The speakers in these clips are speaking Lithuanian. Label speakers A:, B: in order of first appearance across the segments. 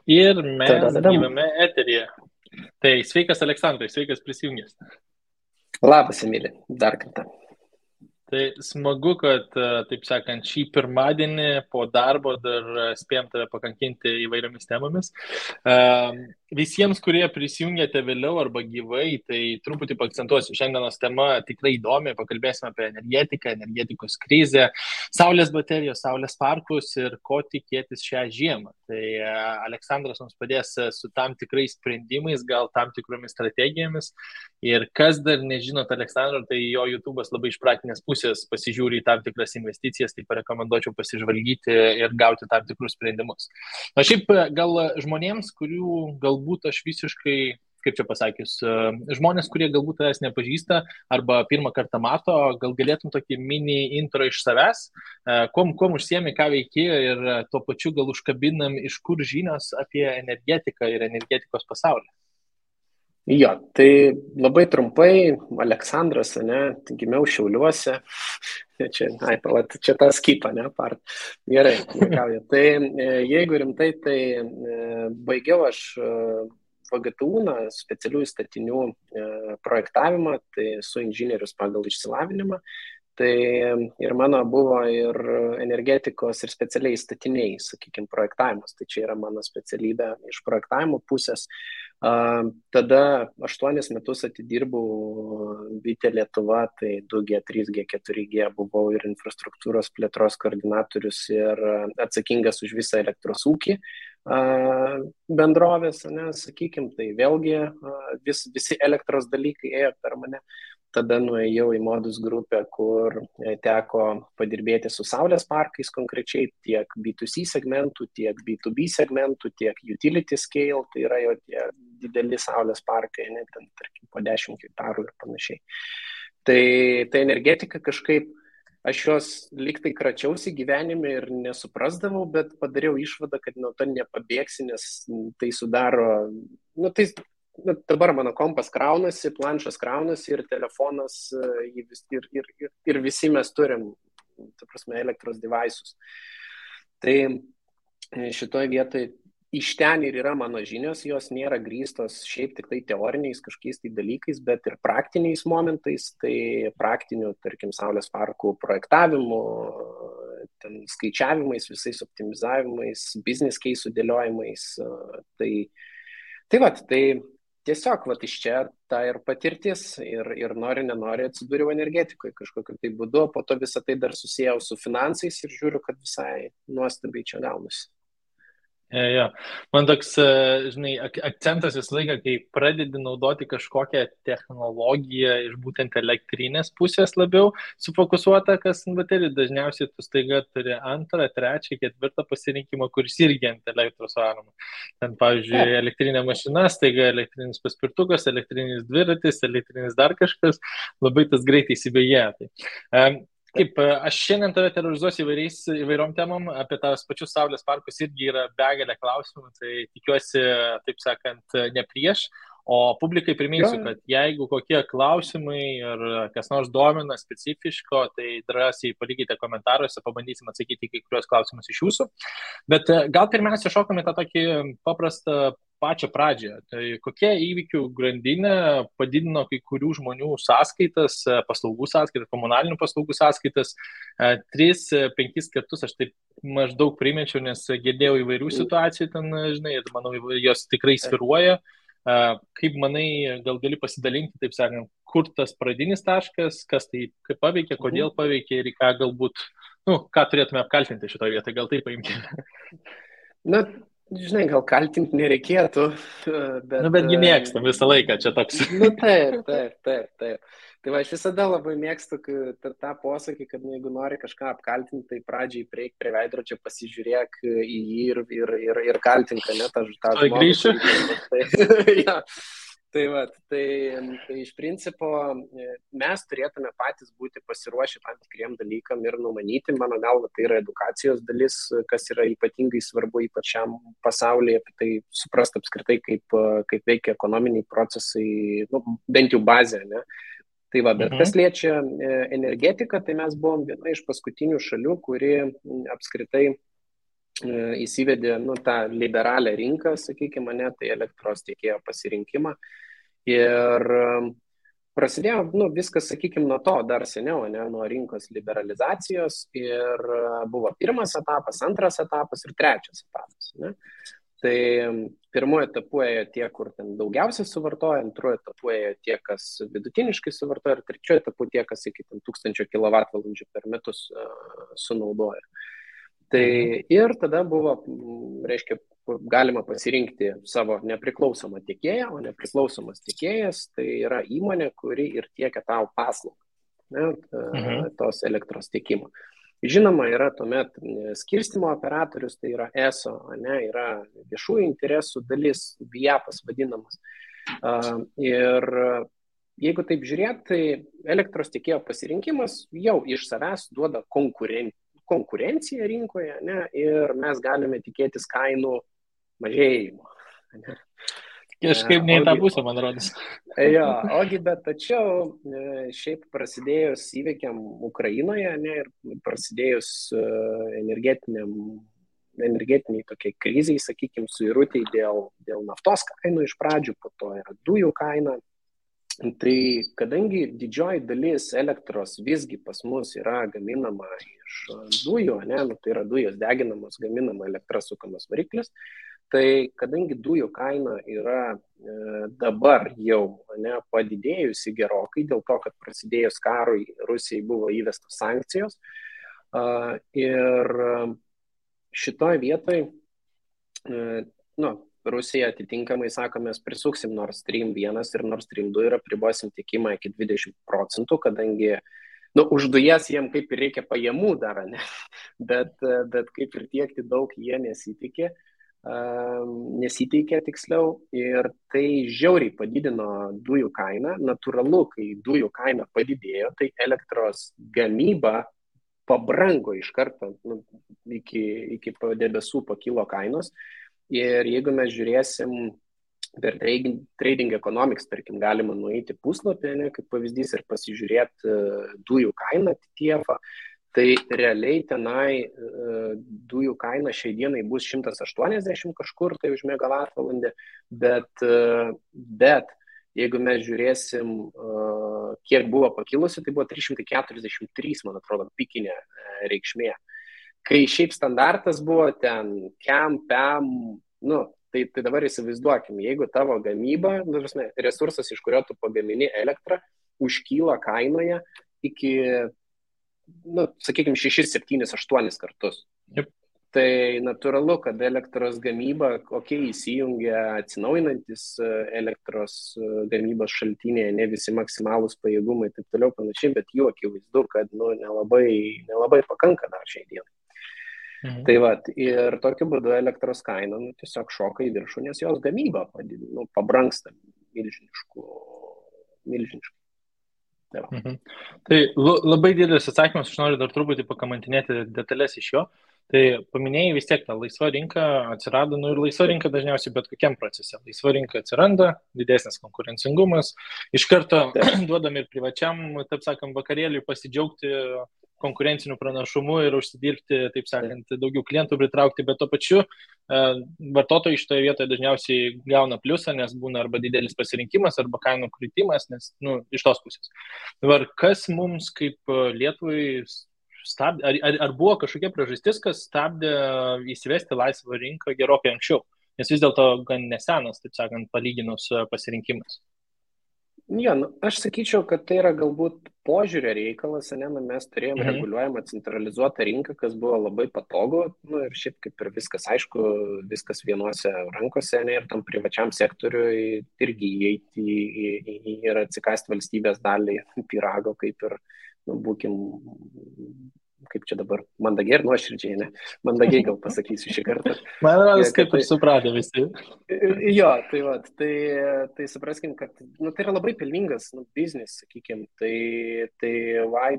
A: Ir mes
B: Tadadadam.
A: gyvame eteryje. Tai sveikas Aleksandrai, sveikas prisijungęs.
B: Labas, Emilė, dar kartą.
A: Tai smagu, kad, taip sakant, šį pirmadienį po darbo dar spėjom tave pakankinti įvairiomis temomis. Visiems, kurie prisijungėte vėliau arba gyvai, tai truputį paakcentuosiu. Šiandienos tema tikrai įdomi, pakalbėsime apie energetiką, energetikos krizę, saulės baterijos, saulės parkus ir ko tikėtis šią žiemą. Tai Aleksandras mums padės su tam tikrais sprendimais, gal tam tikromis strategijomis. Ir kas dar nežinot Aleksandro, tai jo YouTube'as labai iš praktinės pusės pasižiūri į tam tikras investicijas, tai parekomenduočiau pasižvalgyti ir gauti tam tikrus sprendimus. Na šiaip gal žmonėms, kurių galbūt aš visiškai, kaip čia pasakius, žmonės, kurie galbūt tavęs nepažįsta arba pirmą kartą mato, gal galėtum tokį mini intro iš savęs, kuom užsiemi, ką veiki ir tuo pačiu gal užkabinam, iš kur žinios apie energetiką ir energetikos pasaulį.
B: Jo, tai labai trumpai, Aleksandras, ne, gimiau Šiauliuose, čia tą skipą, ne, part. Gerai, juokauju. Tai jeigu rimtai, tai baigiau aš VGTU, specialiųjų statinių projektavimą, tai esu inžinierius pagal išsilavinimą. Tai ir mano buvo ir energetikos ir specialiai statiniai, sakykime, projektavimas. Tai čia yra mano specialybė iš projektavimo pusės. Tada 8 metus atidirbau Vitė Lietuva, tai 2G, 3G, 4G, buvau ir infrastruktūros plėtros koordinatorius ir atsakingas už visą elektros ūkį bendrovės, ne, sakykime, tai vėlgi visi elektros dalykai ėjo per mane. Tada nuėjau į Modus grupę, kur teko padirbėti su saulės parkais konkrečiai, tiek B2C segmentų, tiek B2B segmentų, tiek utility scale, tai yra jo tie dideli saulės parkai, ne, ten, tarkim, po 10 hektarų ir panašiai. Tai energetika kažkaip, aš jos liktai kračiausi gyvenime ir nesuprasdavau, bet padariau išvadą, kad nuo to nepabėgsi, nes tai sudaro, dabar mano kompas kraunasi, planšas kraunasi ir telefonas, ir visi mes turim, ta prasme, elektros devices. Tai šitoje vietoje iš ten ir yra mano žinios, jos nėra grįstos šiaip tik tai teoriniais kažkokiais tai dalykais, bet ir praktiniais momentais, tai praktinių, tarkim, saulės parkų projektavimu, ten skaičiavimais, visais optimizavimais, business case sudėliojimais. Tai tiesiog iš čia ta ir patirtis ir nori, nenori atsidūriau energetikoje kažkokiu tai būdu, po to visą tai dar susijau su finansais ir žiūriu, kad visai nuostabiai čia gaunasi.
A: Jo. Man toks, žinai, akcentas visą laiką, kai pradedi naudoti kažkokią technologiją iš būtent elektrinės pusės labiau sufokusuota, kas baterijų, dažniausiai tu staiga turi antrą, trečią, ketvirtą pasirinkimą, kuris irgi ant elektros varoma. Ten, pavyzdžiui, elektrinė mašina, staiga elektrinis paspirtukas, elektrinis dviratis, elektrinis dar kažkas, labai tas greitai įsibėgėja. Kaip aš šiandien tave terorizuosiu įvairiom temom, apie tavus pačius saulės parkus irgi yra begalė klausimų, tai tikiuosi, taip sakant, ne prieš, o publikai priminsiu, kad jeigu kokie klausimai ir kas nors domina specifiško, tai drąsiai palikite komentaruose, pabandysim atsakyti kai kurios klausimus iš jūsų. Bet gal pirmiausia šokame tą tokį paprastą pačią pradžią. Tai kokia įvykių grandinė padidino kai kurių žmonių sąskaitas, paslaugų sąskaitas, komunalinių paslaugų sąskaitas 3-5 kartus, aš taip maždaug primečiau, nes girdėjau įvairių situacijų ten, žinai, ir manau, jos tikrai sviruoja. Kaip manai, gal gali pasidalinti, taip sakant, kur tas pradinis taškas, kas tai kaip paveikė, kodėl paveikė ir į ką galbūt, ką turėtume apkaltinti šitoje vietoje, gal taip paimkime.
B: Žinai, gal kaltinti nereikėtų, bet...
A: Betgi mėgstam visą laiką, čia toks.
B: Taip. Tai aš visada labai mėgstu tą posakį, kad jeigu nori kažką apkaltinti, tai pradžiai prieik prie veidrodžio, pasižiūrėk į jį ir kaltink, ne, tą žmogų.
A: Grįšiu.
B: Ja. Tai iš principo mes turėtume patys būti pasiruošę tam tikriem dalykam ir numanyti, mano galva, tai yra edukacijos dalis, kas yra ypatingai svarbu ypač šiam pasaulyje, apie tai suprasti apskritai, kaip veikia ekonominiai procesai, bent jau bazė, ne? Tai bet kas liečia energetiką, tai mes buvom viena iš paskutinių šalių, kuri apskritai įsivedė tą liberalią rinką, sakykime, tai elektros tiekėjo pasirinkimą. Ir prasidėjo viskas, sakykime, nuo to dar seniau, nuo rinkos liberalizacijos ir buvo pirmas etapas, antras etapas ir trečias etapas. Tai pirmuoju etapu ėjo tie, kur ten daugiausiai suvartoja, antruoju etapu ėjo tie, kas vidutiniškai suvartoja ir trečiuoju etapu tie, kas iki 1000 kWh per metus sunaudoja. Tai ir tada buvo, reiškia, galima pasirinkti savo nepriklausomą tiekėją, o nepriklausomas tiekėjas tai yra įmonė, kuri ir tiekia tau paslaugą, tos elektros tiekimo. Žinoma, yra tuomet skirstymo operatorius, tai yra ESO, yra viešųjų interesų dalis, VIAPas vadinamas. Ir jeigu taip žiūrėt, tai elektros tiekėjo pasirinkimas jau iš savęs duoda konkurenciją rinkoje, ir mes galime tikėtis kainų mažėjimo.
A: Kažkaip ne į tą pusę, man rodos.
B: Bet tačiau šiaip prasidėjus įvykiam Ukrainoje, ir prasidėjus energetiniai tokiai kriziai, sakykime, suirutei dėl naftos kainų iš pradžių, po to yra dujų kaina. Tai kadangi didžioji dalis elektros visgi pas mus yra gaminama iš dujų, tai yra dujos deginamos, gaminama elektra sukamas variklis, tai kadangi dujų kaina yra dabar jau padidėjusi gerokai, dėl to, kad prasidėjus karui Rusijai buvo įvestos sankcijos, ir šitoje vietoje Rusija atitinkamai sako, mes prisuksim Nord Stream 1 ir Nord Stream 2 ir apribosim tiekimą iki 20%, kadangi už dujas jiem kaip ir reikia pajamų dar, bet kaip ir tiekti daug jie nesiteikė tiksliau, ir tai žiauriai padidino dujų kainą. Natūralu, kai dujų kaina padidėjo, tai elektros gamyba pabrango iš karto, iki debesų pakilo kainos. Ir jeigu mes žiūrėsim per Trading Economics, tarkim, galima nueiti puslapį, kaip pavyzdys, ir pasižiūrėti dujų kainą TTF, tai realiai tenai dujų kaina šiai dienai bus 180 kažkur tai už megavatvalandę, bet jeigu mes žiūrėsim, kiek buvo pakilusi, tai buvo 343, man atrodo, pikinė reikšmė. Kai šiaip standartas buvo ten KEM, PEM, tai dabar įsivaizduokim, jeigu tavo gamyba, resursas, iš kurio tu pagamini elektrą, užkyla kainoje iki, sakykime, 6, 7, 8 kartus.
A: Yep.
B: Tai natūralu, kad elektros gamyba, įsijungia atsinaujinantis elektros gamybos šaltiniai, ne visi maksimalūs pajėgumai, taip toliau panašiai, bet jų akivaizdu, kad nelabai pakanka dar šiai dienai. Tai ir tokiu būdu elektros kaina tiesiog šoka į viršų, nes jos gamyba pabrangsta milžiniškai.
A: Tai labai didelis atsakymas, aš noriu dar truputį pakamantinėti detalės iš jo. Tai paminėjai vis tiek, ta laisva rinka atsirado, ir laisva rinka dažniausiai bet kokiam procese. Laisva rinka atsiranda, didesnis konkurencingumas, iš karto duodam ir privačiam, taip sakant, vakarėliui pasidžiaugti konkurencinių pranašumų ir užsidirbti, taip sakant, daugiau klientų pritraukti, bet to pačiu vartotojai šitoje vietoje dažniausiai gauna pliusą, nes būna arba didelis pasirinkimas, arba kainų kritimas, nes, iš tos pusės. Dabar, kas mums kaip Lietuvai stabdė, ar buvo kažkokia priežastis, kas stabdė įsivesti laisvą rinką gerokai anksčiau, nes vis dėlto gan nesenas, taip sakant, palyginus pasirinkimas?
B: Aš sakyčiau, kad tai yra galbūt požiūrio reikalas, mes turėjome reguliuojamą centralizuotą rinką, kas buvo labai patogu, ir šiaip kaip ir viskas aišku, viskas vienose rankose, ir tam privačiam sektoriui irgi įeiti ir atsikasti valstybės dalį pyrago, kaip ir, būkim, kaip čia dabar, mandagiai ir nuoširdžiai, mandagiai gal pasakysiu šį kartą.
A: Man rodos, kaip ir supratę visi.
B: Tai supraskim, kad tai yra labai pelningas biznis, sakykim, tai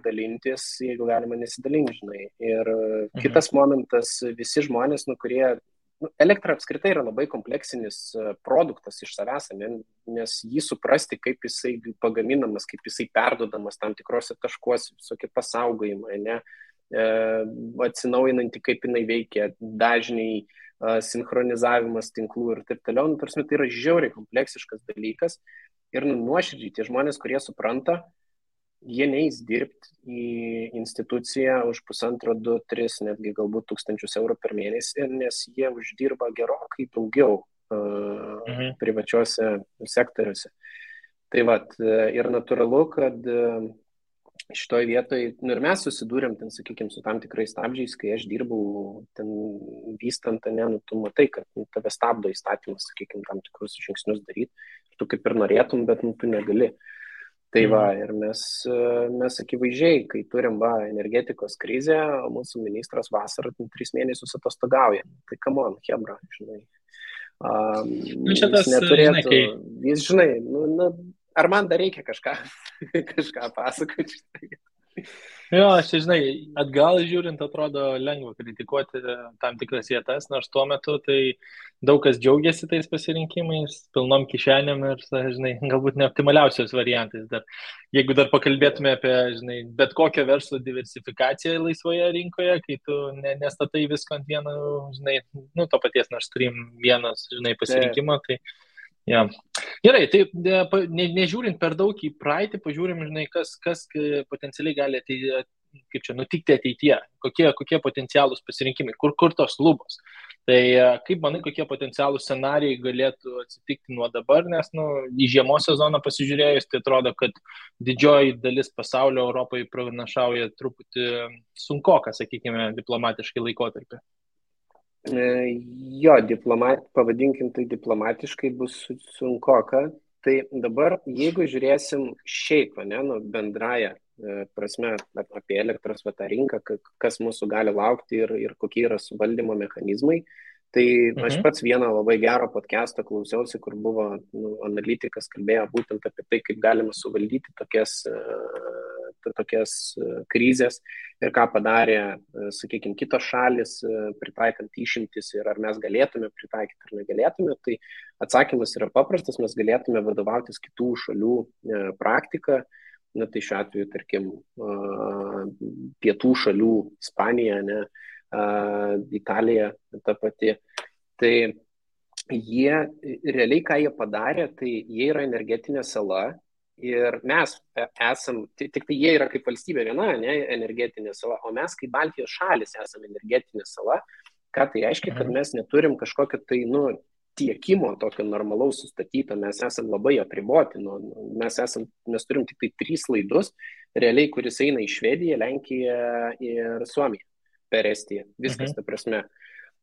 B: dalintis, jeigu galima nesidalinti, žinai. Ir kitas momentas, visi žmonės, kurie, elektra apskritai yra labai kompleksinis produktas iš savęs, nes jį suprasti, kaip jisai pagaminamas, kaip jisai perduodamas tam tikrose taškuose, visokie pasaugojimai, atsinaujinanti, kaip jinai veikia, dažniai, sinchronizavimas tinklų ir taip toliau. Nu, tarsi, tai yra žiauriai kompleksiškas dalykas ir nuoširdžiai tie žmonės, kurie supranta, jie neis dirbti į instituciją už 1,5, 2, 3, netgi galbūt 1,000 eurų per mėnesį, nes jie uždirba gerokai daugiau privačiuose sektoriuose. Tai vat, ir natūralu, kad šitoje vietoje, nu ir mes susidūrėm, ten, sakykime, su tam tikrais stabdžiais, kai aš dirbau ten vystant, nu, tu matai, kad tave stabdo įstatymas, sakykime, tam tikrus žingsnius daryti, tu kaip ir norėtum, bet nu, tu negali. Tai va, ir mes akivaizdžiai, kai turim energetikos krizę, mūsų ministras vasarą 3 mėnesius atostogauja. Tai come on, hebra, žinai. Jis neturėtų, jis, žinai, ar man dar reikia kažką pasakoti?
A: Jo, aš žinai, atgal žiūrint atrodo lengva kritikuoti tam tikras vietas, nors tuo metu tai daug kas džiaugiasi tais pasirinkimais, pilnom kišenėm ir, žinai, galbūt neoptimaliausios variantais. Dar, jeigu dar pakalbėtume apie, žinai, bet kokią verslo diversifikaciją laisvoje rinkoje, kai tu nestatai visko ant vieno, žinai, nu, to paties Nord Stream vienas, žinai, pasirinkimo, tai ja. Gerai, tai nežiūrint per daug į praeitį, pažiūrim, žinai, kas potencialiai gali kaip čia nutikti ateityje, kokie potencialūs pasirinkimai, kur tos lubos. Tai kaip manai, kokie potencialūs scenarijai galėtų atsitikti nuo dabar, nes į žiemos sezoną pasižiūrėjus, tai atrodo, kad didžioji dalis pasaulio Europai pranašauja truputį sunkoką, sakykime, diplomatiškai laikotarpį.
B: Jo, pavadinkim tai diplomatiškai bus sunkoka. Tai dabar, jeigu žiūrėsim šiaip, bendraja prasme apie elektros rinką, kas mūsų gali laukti ir kokie yra suvaldymo mechanizmai, tai aš pats vieną labai gerą podcastą klausiausi, kur buvo analitikas kalbėjo būtent apie tai, kaip galima suvaldyti tokias krizės ir ką padarė, sakykime, kitos šalis, pritaikant išimtis ir ar mes galėtume pritaikyti ar negalėtume, tai atsakymas yra paprastas, mes galėtume vadovautis kitų šalių praktiką, tai šiuo atveju, tarkim, pietų šalių, Ispanija, Italija, ta pati, tai jie, realiai ką jie padarė, tai jie yra energetinė sala, ir mes esam, tik tai jie yra kaip valstybė viena, energetinė sala, o mes kaip Baltijos šalis esam energetinė sala, ką tai reiškia, kad mes neturim kažkokio tai, tiekimo tokio normalaus sustatyto, mes esam labai apriboti, mes turim tik tai 3 laidus, realiai, kuris eina į Švediją, Lenkiją ir Suomiją per Estiją, viskas, ta prasme.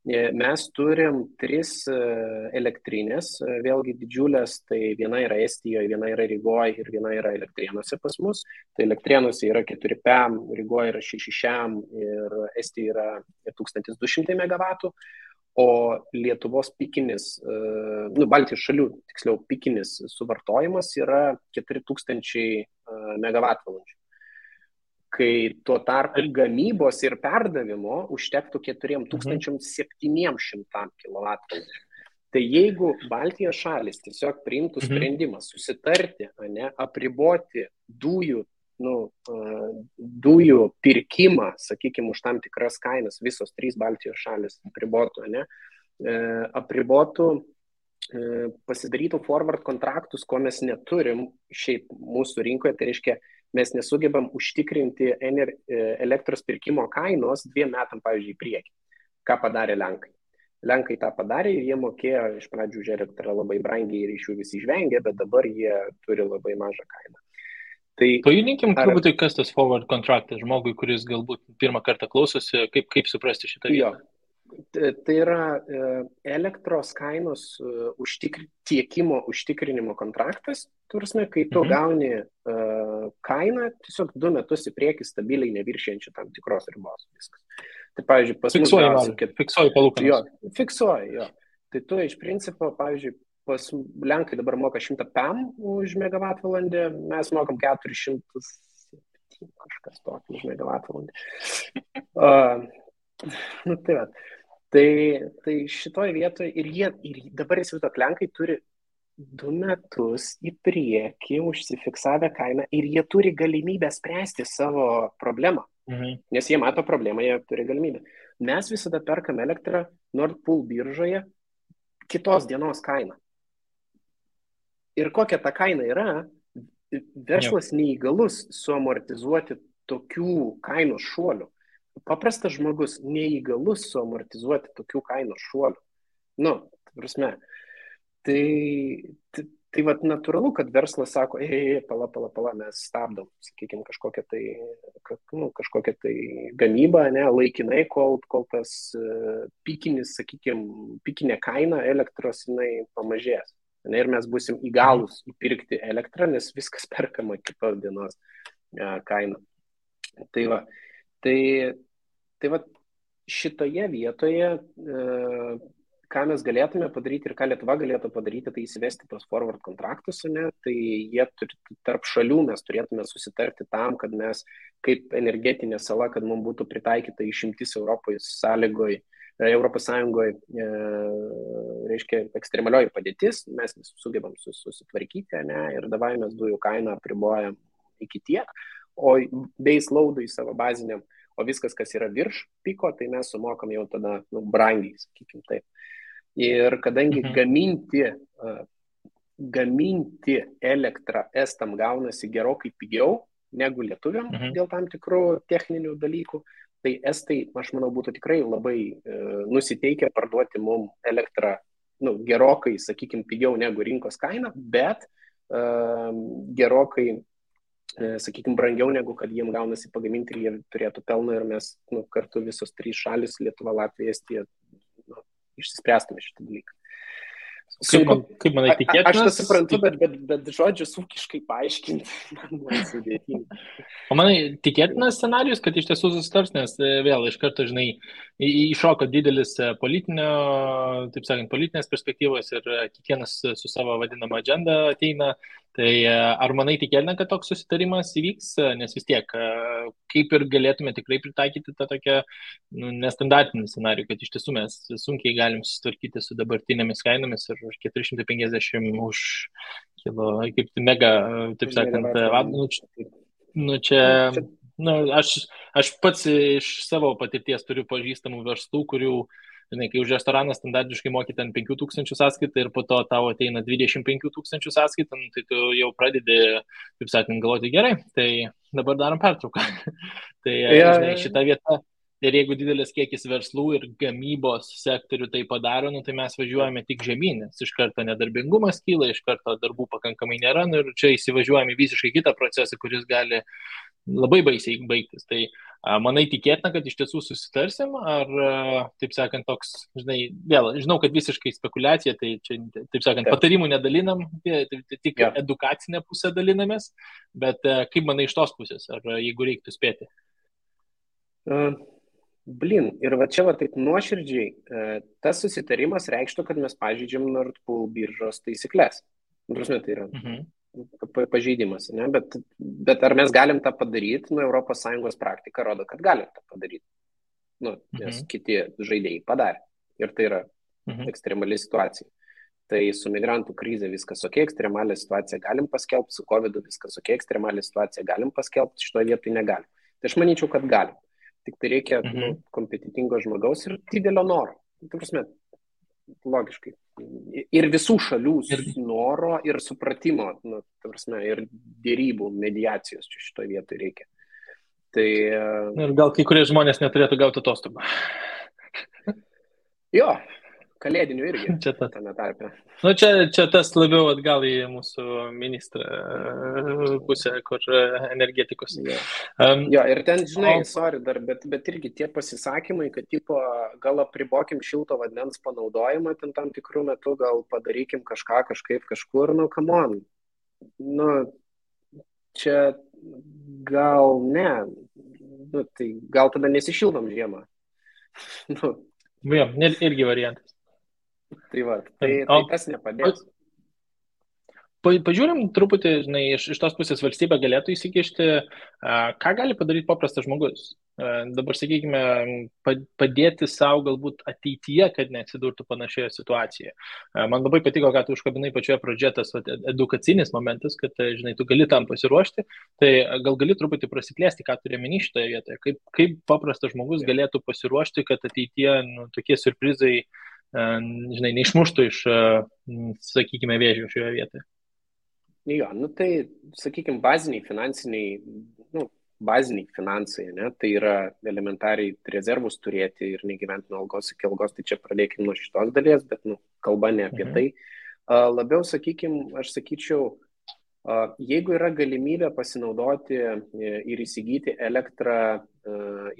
B: Mes turim 3 elektrinės, vėlgi didžiulės, tai viena yra Estijoje, viena yra Rygoje ir viena yra Elektrėnuose pas mus. Tai Elektrėnuose yra 4 PEM, Rygoje yra 6 šiam ir Estijoje yra 1200 MW, o Lietuvos pikinis, Baltijos šalių, tiksliau, pikinis suvartojimas yra 4000 MW. Kai tuo tarpu gamybos ir perdavimo užtektų 4700 kW. Tai jeigu Baltijos šalis tiesiog priimtų sprendimą susitarti, apriboti dujų pirkimą, sakykime, už tam tikras kainas, visos 3 Baltijos šalis apribotų, pasidarytų forward kontraktus, ko mes neturim šiaip mūsų rinkoje, tai reiškia, mes nesugebam užtikrinti elektros pirkimo kainos 2 metam, pavyzdžiui, į priekį. Ką padarė Lenkai? Lenkai tą padarė ir jie mokėjo iš pradžių už elektrą labai brangiai ir iš jų visi žvengė, bet dabar jie turi labai mažą kainą. Tai,
A: pajudinkim turbūt, kas tas forward kontraktas žmogui, kuris galbūt pirmą kartą klausosi, kaip suprasti šitą vietą?
B: Tai yra elektros kainos tiekimo užtikrinimo kontraktas, turime, kai tu gauni kainą tiesiog 2 metus į priekį stabiliai neviršijančią tam tikros ribos. Viskas. Tai, pavyzdžiui, pas mus
A: fiksuoji palūkanas.
B: Jo, fiksuoji, jo. Tai tu iš principo, pavyzdžiui, pas Lenkai dabar moka 100 PEM už megavatvalandę, mes mokam 400 kažkas tokio už megavatvalandę. Tai va. Tai šitoje vietoje ir dabar įsivaizduok, Lenkai turi 2 metus į priekį užsifiksavę kainą ir jie turi galimybę spręsti savo problemą, Nes jie mato problemą, jie turi galimybę. Mes visada perkam elektrą Nord Pool biržoje kitos dienos kainą. Ir kokia ta kaina yra, verslas neįgalus suamortizuoti tokių kainos šuolių. Paprastas žmogus neįgalus suamortizuoti tokių kainos šuolių. Nu, prasme, tai vat natūralu, kad verslas sako, pala, mes stabdom, sakykime, kažkokią tai gamybą, ne, laikinai, kol tas pikinė kaina elektros jinai pamažės. Ne, ir mes busim įgalūs įpirkti elektrą, nes viskas perkama kitos dienos kaina. Tai va šitoje vietoje, ką mes galėtume padaryti ir ką Lietuva galėtų padaryti, tai įsivesti tos forward kontraktus, ne, tai jie tarp šalių mes turėtume susitarti tam, kad mes kaip energetinė sala, kad mums būtų pritaikyta išimtis Europos Sąjungoje, reiškia ekstremalioji padėtis, mes sugebam susitvarkyti, ne, ir dabar mes dujų kainą apribojam iki tiek, o base loadui savo baziniam, o viskas, kas yra virš piko, tai mes sumokam jau tada brangiai, sakykim taip. Ir kadangi gaminti elektrą estam gaunasi gerokai pigiau negu lietuviam dėl tam tikrų techninių dalykų, tai estai, aš manau, būtų tikrai labai nusiteikę parduoti mums elektrą gerokai, sakykim, pigiau negu rinkos kaina, bet gerokai, sakykim, brangiau negu kad jiem gaunasi pagaminti ir jie turėtų pelną ir mes kartu visos trys šalis, Lietuva, Latvija, Estija, išsispręstume šitą dalyką.
A: Kaip manai, tikėtinas?
B: Aš tą suprantu, bet žodžius ūkiškai paaiškinti man sudėtinga.
A: O manai, tikėtinas scenarijus, kad iš tiesų susitars, nes vėl iš karto, žinai, iššoko didelis politinės perspektyvos ir kiekvienas su savo vadinama agenda ateina. Tai ar manai tikėtina, kad toks susitarimas įvyks, nes vis tiek, kaip ir galėtume tikrai pritaikyti tą tokią nestandartinį scenarijų, kad iš tiesų mes sunkiai galim susitvarkyti su dabartinėmis kainomis ir už 450 už kilo, kaip mega, taip sakant, aš pats iš savo patirties turiu pažįstamų verslų, kurių, žinai, kai už restoraną standartiškai moki ten 5,000 sąskaitą ir po to tavo ateina 25,000 sąskaitą, tai tu jau pradedi, kaip sakant, galvoti gerai, tai dabar darom pertrauką. Tai žinai, šitą vietą, ir jeigu didelis kiekis verslų ir gamybos sektorių tai padaro, tai mes važiuojame tik žemyn, nes iš karto nedarbingumas kyla, iš karto darbų pakankamai nėra, ir čia įsivažiuojame visiškai kitą procesą, kuris gali labai baisiai baigtis. Tai manai tikėtina, kad iš tiesų susitarsim, ar, taip sakant, toks, žinai, vėl, žinau, kad visiškai spekulacija, tai čia, taip sakant, patarimų nedalinam, tik edukacinę pusę dalinamės, bet kaip manai iš tos pusės, ar jeigu reiktų spėti?
B: Ir va čia taip nuoširdžiai, tas susitarimas reikštų, kad mes pažeidžiam Nord Pool biržos taisyklės. Tai yra pažeidimas, ne? Bet ar mes galim tą padaryti? Europos Sąjungos praktika rodo, kad galim tą padaryti. Nes kiti žaidėjai padarė. Ir tai yra ekstremali situacija. Tai su migrantų krize viskas ok, ekstremalią situaciją galim paskelbti, su COVID viskas ok, ekstremalią situaciją galim paskelbti, šitoje vietoje negalim. Tai aš manyčiau, kad galim. Tik tai reikia kompetitingo žmogaus ir didelio noro. Tai prasme, logiškai. Ir visų šalių noro ir supratimo, tai prasme, ir dėrybų, mediacijos čia šitoje vietoje reikia. Tai,
A: ir gal kai kurie žmonės neturėtų gauti atostogų.
B: Jo, kalėdinių irgi.
A: Čia tame tarpe. Čia tas labiau atgal į mūsų ministrą pusę, kur energetikos.
B: Jo, ir ten, žinai, bet irgi tie pasisakymai, kad tipo, gal apribokim šilto vandens panaudojimą ten tam tikrų metų, gal padarykim kažką kažkaip kažkur, come on. Čia gal ne, tai gal tada nesišildom žiemą.
A: Jo, irgi variantas.
B: Tai va, tai tas nepadės.
A: Pažiūrim truputį, žinai, iš tos pusės valstybė galėtų įsikišti, ką gali padaryti paprastas žmogus. dabar, sakykime, padėti savo galbūt ateityje, kad neatsidurtų panašioje situacijoje. Man labai patiko, kad tu užkabinai pačioje pradžioje tas edukacinis momentas, kad, žinai, tu gali tam pasiruošti, tai gal gali truputį prasiplėsti, ką turi meni šitoje vietoje, kaip paprastas žmogus galėtų pasiruošti, kad ateityje tokie surprizai, žinai, neišmuštų iš, sakykime, vėžių šioje vietoje.
B: Jo, tai, sakykime, baziniai finansai, ne? Tai yra elementariai rezervus turėti ir negyventi nuo algos iki algos, tai čia pradėkime nuo šitos dalies, bet kalba ne apie tai. Labiau, sakykime, aš sakyčiau, jeigu yra galimybė pasinaudoti ir įsigyti elektrą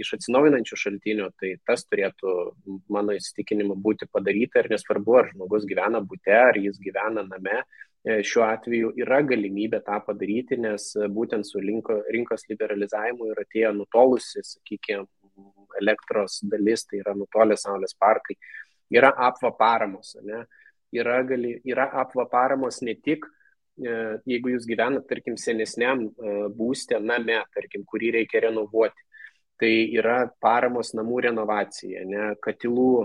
B: iš atsinaujinančių šaltinių, tai tas turėtų, mano įsitikinimu, būti padaryta ir nesvarbu, ar žmogus gyvena bute, ar jis gyvena name. Šiuo atveju yra galimybė tą padaryti, nes būtent su rinkos liberalizavimu ir atėjo nutolusi, sakykime, elektros dalis, tai yra nutolę saulės parkai, yra apva paramos. Ne? Yra apva paramos ne tik, jeigu jūs gyvenat, tarkim, senesniam būste name, tarkim, kurį reikia renovuoti. Tai yra paramos namų renovacija, ne? Katilų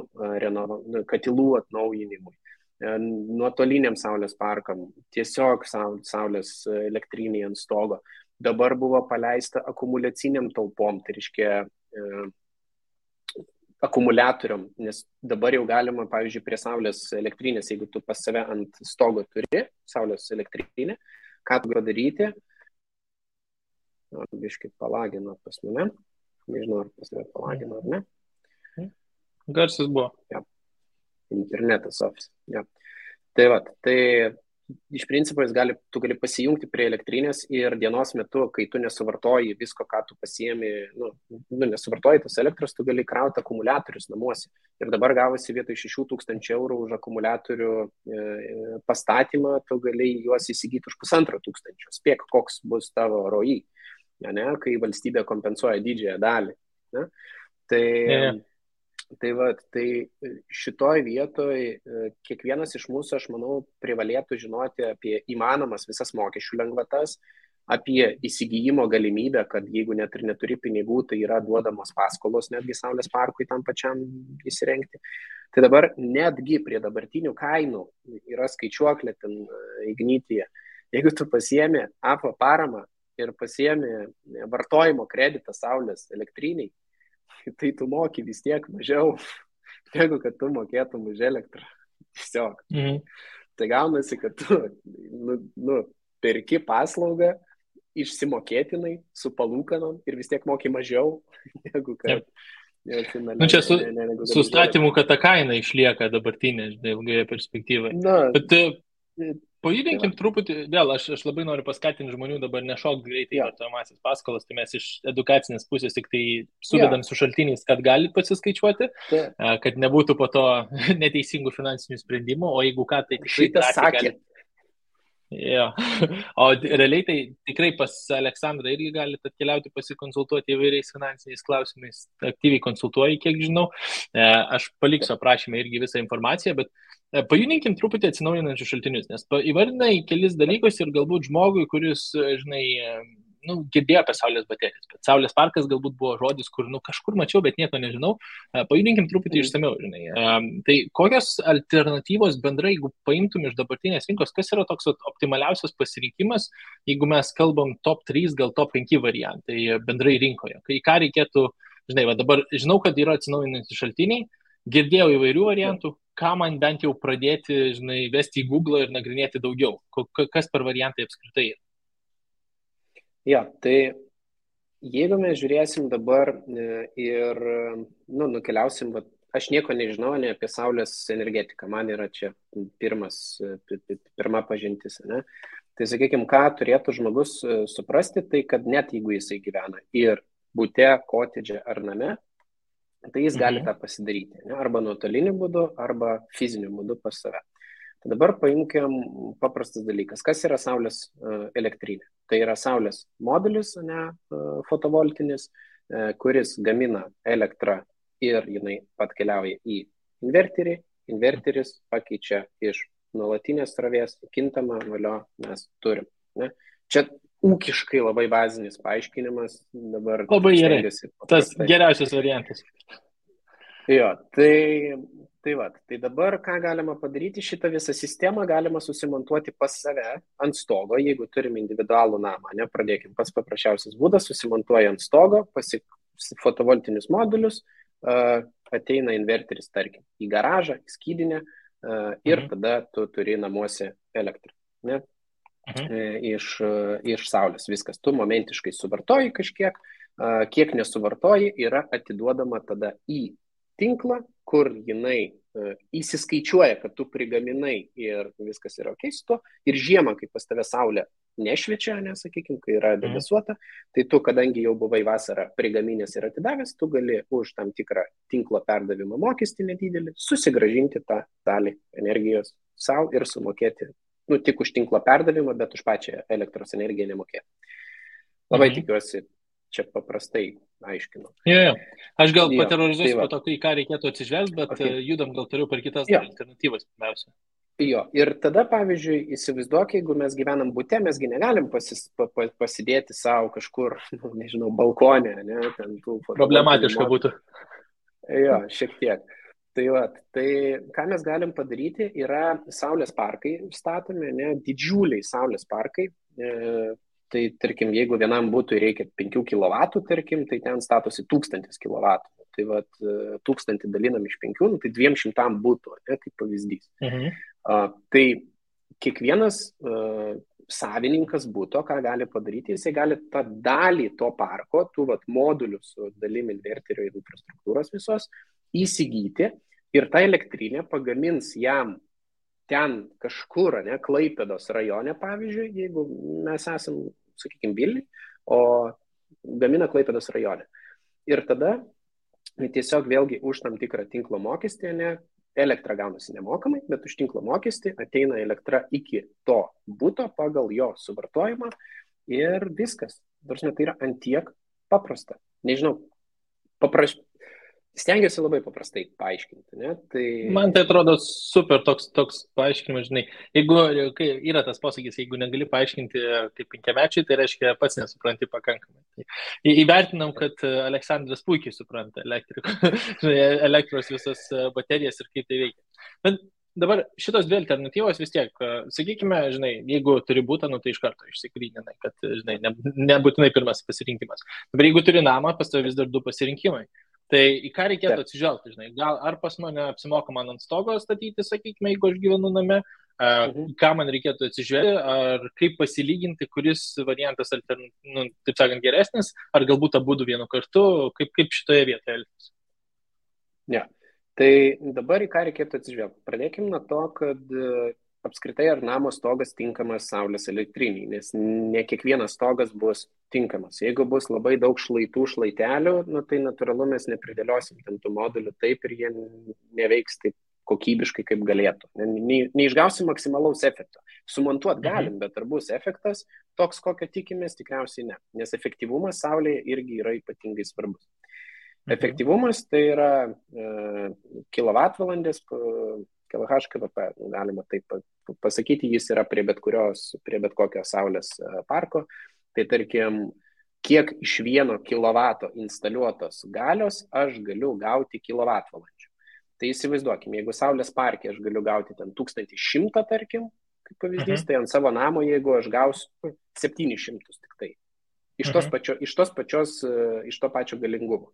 B: atnaujinimui. Nuotoliniam saulės parkam, tiesiog saulės elektriniai ant stogo. Dabar buvo paleista akumuliaciniam talpom, tai reiškia akumuliatoriam, nes dabar jau galima, pavyzdžiui, prie saulės elektrinės, jeigu tu pas save ant stogo turi saulės elektrinę, ką tu gali daryti? Biškai palagino pas mane, nežinau, ar pas mane palagino ar ne.
A: Garsas buvo.
B: Ja. Internetas office. Ja. Tai iš principo tu gali pasijungti prie elektrinės ir dienos metu, kai tu nesuvartoji visko, ką tu pasiemi, nesuvartoji tos elektros, tu gali krauti akumuliatorius namuose. Ir dabar gavosi vietoj 6,000 eurų už akumuliatorių pastatymą, tu gali juos įsigyti už 1,500. Spėk, koks bus tavo ROI, ne? Kai valstybė kompensuoja didžiąją dalį. Ne? Tai šitoj vietoj kiekvienas iš mūsų, aš manau, privalėtų žinoti apie įmanomas visas mokesčių lengvatas, apie įsigijimo galimybę, kad jeigu net ir neturi pinigų, tai yra duodamos paskolos netgi saulės parkui tam pačiam įsirengti. Tai dabar netgi prie dabartinių kainų yra skaičiuoklė ten Ignityje. Jeigu tu pasiemi APA paramą ir pasiemi vartojimo kreditą saulės elektriniai, tai tu moki vis tiek mažiau, negu kad tu mokėtum už elektrą. Tiesiog. Tai gaunasi, kad tu perki paslaugą išsimokėtinai su palūkanom ir vis tiek moki mažiau, negu kad...
A: Čia su statymu, kad ta kaina išlieka dabartinė, ilgoje perspektyvoje. Bet pajudinkim truputį, vėl aš labai noriu paskatinti žmonių dabar nešokti greitai vartojamąsias paskolas, tai mes iš edukacinės pusės tik tai suvedam su šaltiniais, kad galit pasiskaičiuoti, kad nebūtų po to neteisingų finansinių sprendimų, o jeigu ką, tai tikrai galit. Jo. O realiai tai tikrai pas Aleksandrą irgi galite atkeliauti pasikonsultuoti įvairiais finansiniais klausimais, aktyviai konsultuoju, kiek žinau. Aš paliksiu aprašymę irgi visą informaciją, bet pajudinkim truputį atsinaujinančius šaltinius, nes įvardinai kelis dalykus ir galbūt žmogui, kuris, žinai, girdėjo apie saulės baterijas, bet saulės parkas galbūt buvo žodis, kur kažkur mačiau, bet nieko nežinau. Pajudinkim truputį išsamiau, žinai. Tai kokios alternatyvos bendrai, jeigu paimtum iš dabartinės rinkos, kas yra toks optimaliausias pasirinkimas, jeigu mes kalbam top 3, gal top 5 variantai bendrai rinkoje? Ką reikėtų, žinai, dabar žinau, kad yra atsinaujinantys šaltiniai, girdėjau įvairių variantų, ką man bent jau pradėti, žinai, vesti į Google ir nagrinėti daugiau? Kas per variantai apskritai yra?
B: Jo, tai jeigu mes žiūrėsim dabar ir nukeliausim, aš nieko nežinau ne apie saulės energetiką, man yra čia pirma pažintis. Ne? Tai sakykime, ką turėtų žmogus suprasti, tai kad net jeigu jisai gyvena ir bute, kotedže ar name, tai jis gali tą pasidaryti, ne? Arba nuotoliniu būdu, arba fiziniu būdu pas save. Tai dabar paimkim paprastas dalykas. Kas yra saulės elektrinė? Tai yra saulės modulis, fotovoltinis, kuris gamina elektrą ir jinai atkeliauja į inverterį. Inverteris pakeičia iš nuolatinės srovės kintamą valio mes turim. Ne? Čia ūkiškai labai bazinis paaiškinimas, dabar
A: Labai gerai.
B: stengiuosi
A: Tas
B: paprastai.
A: geriausias variantas.
B: Jo, tai dabar ką galima padaryti, šitą visą sistemą galima susimontuoti pas save ant stogo, jeigu turim individualų namą, ne, pradėkim, pats paprasčiausias būdas, susimontuoja ant stogo, fotovoltinius modulius, ateina inverteris, tarkim, į garažą, į skydinę ir tada tu turi namuose elektrą, ne, iš saulės viskas, tu momentiškai suvartoji kažkiek, kiek nesuvartoji, yra atiduodama tada į tinklą, kur jinai įsiskaičiuoja, kad tu prigaminai ir viskas yra ok su to. Ir žiemą, kai pas tave saulė nešviečia, nesakykime, kai yra debesuota, tai tu, kadangi jau buvai vasarą prigaminęs ir atidavęs, tu gali už tam tikrą tinklo perdavimo mokestį nedidelį susigražinti tą dalį energijos savo ir sumokėti, nu, tik už tinklo perdavimą, bet už pačią elektros energiją nemokėti. Labai tikiuosi, čia paprastai aiškinu.
A: Jo. Aš gal paterorizuosiu po to, į ką reikėtų atsižvelgti, bet judam gal toliau per kitas alternatyvas pirmiausia.
B: Jo, ir tada, pavyzdžiui, įsivaizduok, jeigu mes gyvenam bute, mesgi negalim pasidėti savo kažkur, nežinau, balkonė, ne, ten tų
A: problematiška būtų.
B: Jo, šiek tiek. Tai ką mes galim padaryti, yra saulės parkai statomi, ne, didžiuliai saulės parkai. Tai, tarkim, jeigu vienam būtų reikia 5 kW, tarkim, tai ten statosi 1000 kW. Tai 1000 dalinam iš 5, tai 200 būtų, ne, kaip pavyzdys. Tai kiekvienas savininkas būto, ką gali padaryti, jisai gali tą dalį to parko, tų modulių su dalim inverterio ir infrastruktūros visos, įsigyti ir tą elektrinę pagamins jam ten kažkur, ne, Klaipėdos rajone, pavyzdžiui, jeigu mes esam, sakykime, Vilniuj, o gamina Klaipėdos rajone. Ir tada tiesiog vėlgi už tam tikrą tinklo mokestį, ne, elektra gaunasi nemokamai, bet už tinklo mokestį ateina elektra iki to buto pagal jo suvartojimą ir viskas. Tai yra antiek paprasta. Nežinau, stengiuosi labai paprastai paaiškinti. Ne? Tai...
A: Man tai atrodo super toks paaiškinimas, žinai. Jeigu yra tas posakis, jeigu negali paaiškinti kaip 5-mečiai, tai reiškia pats nesupranti pakankamai. Tai įvertinam, kad Aleksandras puikiai supranta elektros visas baterijas ir kaip tai veikia. Bet dabar šitos dvi alternatyvos vis tiek, sakykime, žinai, jeigu turi būtą, nu tai iš karto išsigryninai, kad, žinai, nebūtinai pirmas pasirinkimas. Dabar jeigu turi namą, pas tavai vis dar 2 pasirinkimai. Tai į ką reikėtų atsižvelgti, žinai, gal ar pas mane apsimoka man ant stogo statyti, sakykime, jeigu aš gyvenu name, ką man reikėtų atsižvelgti, ar kaip pasilyginti, kuris variantas, taip sakant, geresnis, ar galbūt abudu vienu kartu, kaip šitoje vietoje elgtis.
B: Ne, tai dabar į ką reikėtų atsižvelgti. Pradėkime nuo to, kad apskritai ar namo stogas tinkamas saulės elektriniai, nes ne kiekvienas stogas bus tinkamas. Jeigu bus labai daug šlaitų, šlaitelių, nu, tai natūralu mes nepridėliosim ten tų modulių taip ir jie neveiks taip kokybiškai, kaip galėtų. Neišgausim maksimalaus efekto. Sumontuot galim, bet ar bus efektas toks, kokio tikimės, tikriausiai ne. Nes efektyvumas saulėje irgi yra ypatingai svarbus. Efektyvumas tai yra kilovatvalandės, kWh, galima taip pasakyti, jis yra prie bet kokio saulės parko. Tai tarkim, kiek iš 1 kilovato instaliuotos galios aš galiu gauti kilovatvalandžių. Tai įsivaizduokime, jeigu saulės parke aš galiu gauti ten 1100, tarkim, kaip pavyzdys, tai ant savo namo, jeigu aš gausiu 700 tik tai. Iš to pačio galingumo.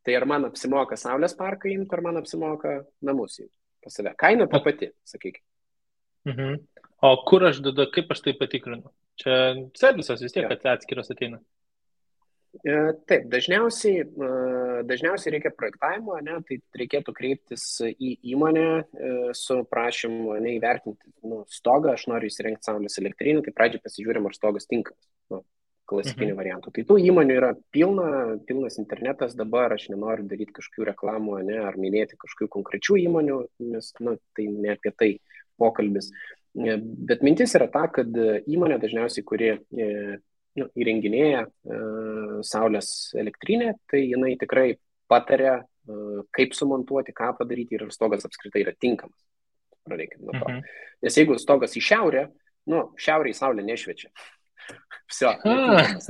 B: Tai ar man apsimoka saulės parką imti, ar man apsimoka namus imti pas save. Kaina ta pati, sakykime.
A: O kur aš tada, kaip aš tai patikrinu? Čia servisas vis tiek, kad atskiras ateina.
B: Taip, dažniausiai reikia projektavimo, ne, tai reikėtų kreiptis į įmonę su prašymu įvertinti stogą, aš noriu įsirengti saulės elektrinį, tai pradžiai pasižiūrim, ar stogas tinkamas, klasikinių variantų. Tai tų įmonių yra pilnas internetas dabar, aš nenoriu daryti kažkokių reklamų, ne, ar minėti kažkokių konkrečių įmonių, nes tai ne apie tai pokalbis. Bet mintis yra ta, kad įmonė dažniausiai, kuri įrenginėja saulės elektrinę, tai jinai tikrai pataria, kaip sumontuoti, ką padaryti ir stogas apskritai yra tinkamas. Pradėkime nuo to. Nes jeigu stogas į šiaurę, šiaurėje saulė nešviečia. Vsio, netinkamas.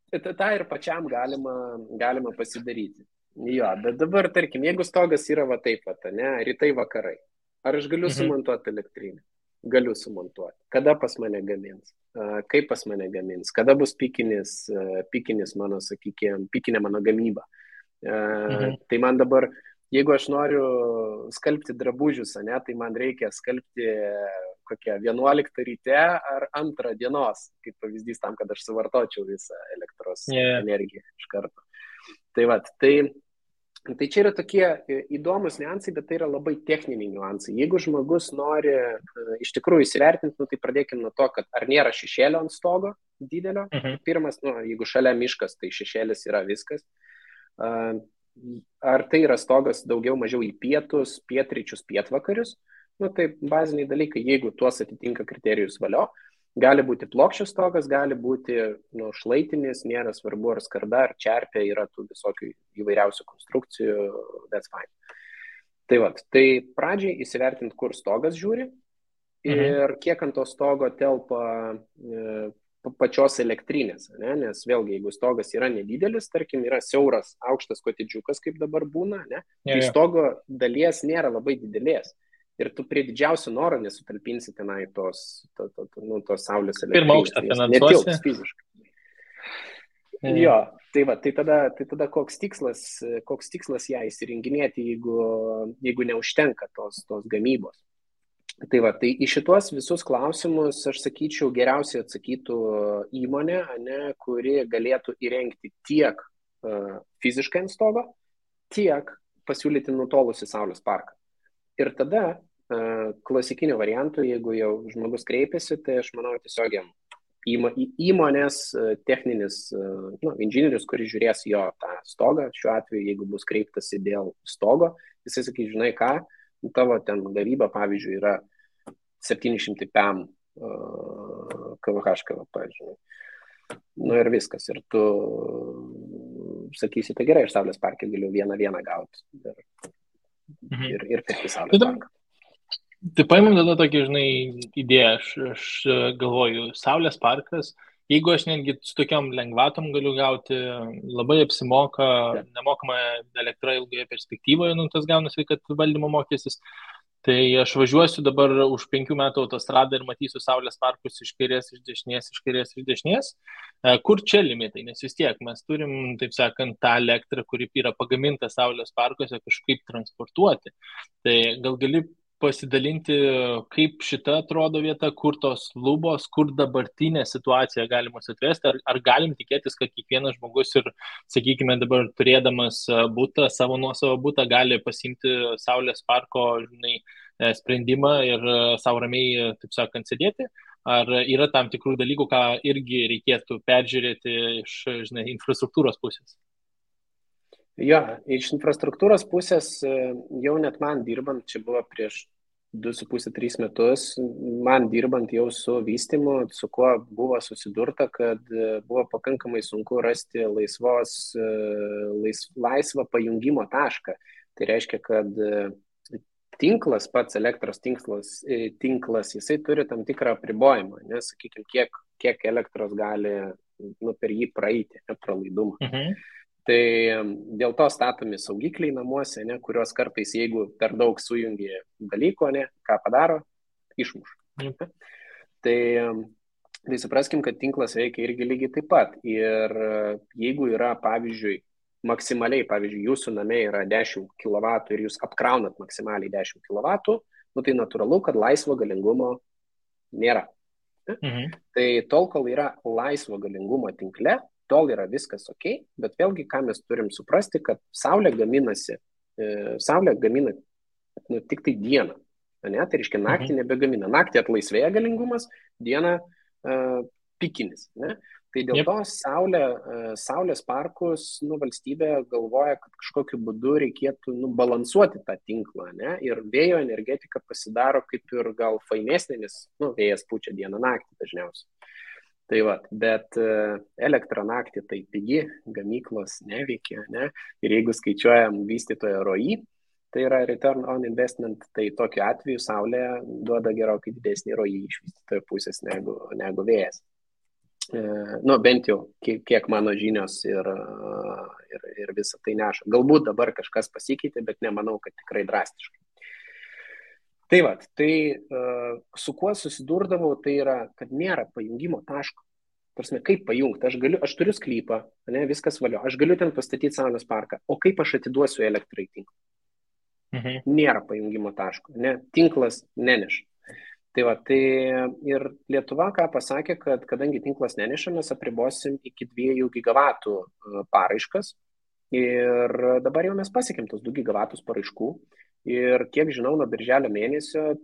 B: Ta ir pačiam galima pasidaryti. Jo, bet dabar, tarkim, jeigu stogas yra va taip, ne, rytai vakarai, ar aš galiu sumontuoti elektrinę? Galiu sumontuoti. Kada pas mane gamins? Kaip pas mane gamins? Kada bus pikinis mano, sakykime, pikinė mano gamyba? Tai man dabar, jeigu aš noriu skalbti drabužius, ne, tai man reikia skalbti kokią 11 ryte ar 2 dienos, kaip pavyzdys tam, kad aš suvartočiau visą elektros energiją iš karto. Tai čia yra tokie įdomus niuansai, bet tai yra labai techniniai niuansai. Jeigu žmogus nori iš tikrųjų įsivertinti, tai pradėkime nuo to, kad ar nėra šešėlio ant stogo didelio. Pirmas, jeigu šalia miškas, tai šešėlis yra viskas. Ar tai yra stogas daugiau mažiau į pietus, pietryčius, pietvakarius. Tai baziniai dalykai, jeigu tuos atitinka kriterijus valio, gali būti plokščias stogas, gali būti šlaitinis, nėra svarbu ar skarda, ar čerpė, yra tų visokių įvairiausių konstrukcijų, that's fine. Tai pradžiai įsivertinti, kur stogas žiūri ir kiek ant to stogo telpa pačios elektrinės, ne? Nes vėlgi, jeigu stogas yra nedidelis, tarkim, yra siauras, aukštas kotedžiukas, kaip dabar būna, ne? Tai stogo dalies nėra labai didelės. Ir tu prie didžiausio noro nesutalpinsi tenai tos saulės elektrinės.
A: Pirmą aukštą finansuosi.
B: Netilps fiziškai. Jo, tai tada koks tikslas ją įsirenginėti, jeigu neužtenka tos gamybos. Tai į šitos visus klausimus, aš sakyčiau, geriausiai atsakytų įmonė, kuri galėtų įrengti tiek fiziškai ant stogo, tiek pasiūlyti nutolusi saulės parką. Ir tada klasikinių variantų, jeigu jau žmogus kreipiasi, tai aš manau tiesiog įmonės techninis inžinierius, kuris žiūrės jo tą stogą, šiuo atveju, jeigu bus kreiptasi dėl stogo, jisai sakys, žinai ką, tavo ten gavyba, pavyzdžiui, yra 700 PM kVh, žinai. Ir viskas. Ir tu sakysi, tai gerai, aš saulės parke galiu vieną gauti. Ir pirkti saulės parką.
A: Tai paimam tada tokį, žinai, idėją, aš galvoju, saulės parkas, jeigu aš netgi su tokiam lengvatom galiu gauti, labai apsimoka, nemokama elektra ilgoje perspektyvoje, tas gaunasi, kad valdymo mokestis, tai aš važiuosiu dabar už 5 metų autostradą ir matysiu saulės parkus iš kairės, iš dešinės. Kur čia limitai? Nes vis tiek mes turim, taip sakant, tą elektrą, kuri yra pagaminta saulės parkuose, kažkaip transportuoti. Tai gal gali pasidalinti, kaip šita atrodo vieta, kur tos lubos, kur dabartinė situacija galimus atvesti, ar galim tikėtis, kad kiekvienas žmogus ir, sakykime, dabar turėdamas butą, savo nuosavą butą, gali pasimti saulės parko, žinai, sprendimą ir savo ramiai, taip sakant, sėdėti, ar yra tam tikrų dalykų, ką irgi reikėtų peržiūrėti iš, žinai, infrastruktūros pusės?
B: Jo, iš infrastruktūros pusės jau net man dirbant, čia buvo prieš 2,5-3 metus, man dirbant jau su vystymu, su kuo buvo susidurta, kad buvo pakankamai sunku rasti laisvą pajungimo tašką. Tai reiškia, kad tinklas, pats elektros tinklas, jisai turi tam tikrą apribojimą, nes, sakykime, kiek elektros gali per jį praeiti, pralaidumą. Tai dėl to statomi saugikliai namuose, kurios kartais, jeigu per daug sujungi dalyko, ką padaro, išmuša. Tai supraskim, kad tinklas veikia irgi lygiai taip pat. Ir jeigu yra, pavyzdžiui, maksimaliai, jūsų name yra 10 kW ir jūs apkraunat maksimaliai 10 kW, tai natūralu, kad laisvo galingumo nėra. Tai tol, kol yra laisvo galingumo tinkle, tol yra viskas ok, bet vėlgi, ką mes turim suprasti, kad saulė gamina tik tai dieną. Tai reiškia, naktį nebegamina. Naktį atlaisvėja galingumas, dieną pikinis. Tai dėl to saulės parkus valstybė galvoja, kad kažkokiu būdu reikėtų balansuoti tą tinklą. Ir vėjo energetika pasidaro kaip ir gal fainesnė, nes vėjas pučia dieną naktį dažniausiai. Tai bet elektra naktį tai pigi, gamyklos neveikia, ir jeigu skaičiuojam vystytojo ROI, tai yra return on investment, tai tokiu atveju saulė duoda gerokai didesnį ROI iš vystytojo pusės negu vėjas. nu, bent jau kiek mano žinios ir visą tai neša. Galbūt dabar kažkas pasikeitė, bet nemanau, kad tikrai drastiškai. Tai va, tai su kuo susidurdavau, tai yra, kad nėra pajungimo taško. Prasme, kaip pajungti? Aš turiu sklypą, ne, viskas valio, aš galiu ten pastatyti saulės parką, o kaip aš atiduosiu elektrą į tinklą? Nėra pajungimo taško, ne, tinklas neneša. Tai va, tai ir Lietuva ką pasakė, kad kadangi tinklas neneša, mes apribosim iki 2 gigavatų paraiškas ir dabar jau mes pasiekėm tos 2 gigavatus paraiškų ir kiek žinau, nuo birželio mėnesio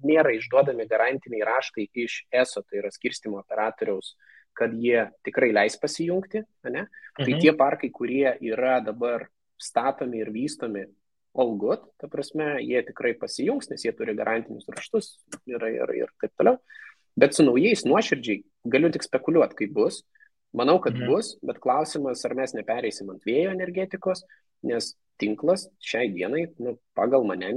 B: nėra išduodami garantiniai raštai iš ESO, tai yra skirstymo operatoriaus, kad jie tikrai leis pasijungti, ne? Tai tie parkai, kurie yra dabar statomi ir vystomi, all good, ta prasme, jie tikrai pasijungs, nes jie turi garantinius raštus ir taip toliau. Bet su naujais nuoširdžiai galiu tik spekuliuoti, kaip bus. Manau, kad bus, bet klausimas, ar mes nepereisim ant vėjo energetikos, nes tinklas šiai dienai, nu, pagal mane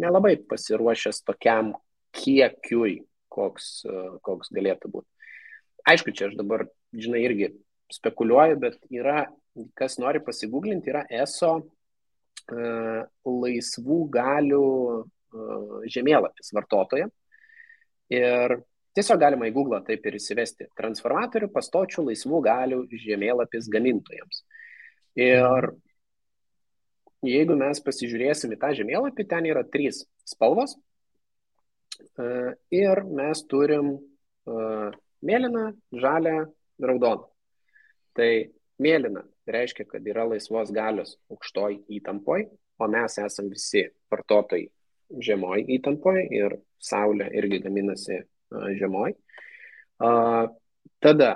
B: nelabai pasiruošęs tokiam kiekiui, koks galėtų būti. Aišku, čia aš dabar, žinai, irgi spekuliuoju, bet yra, kas nori pasigūglinti, yra ESO laisvų galių žemėlapis vartotoja. Ir tiesiog galima į Google taip ir įsivesti transformatorių pastočių laisvų galių žemėlapis gamintojams. Ir jeigu mes pasižiūrėsim į tą žemėlapį, ten yra 3 spalvos. Ir mes turim mėlyną, žalią, raudoną. Tai mėlyna reiškia, kad yra laisvos galios aukštoj įtampoj, o mes esam visi vartotojai žemoj įtampoj ir saulė irgi gaminasi žemoj. Tada,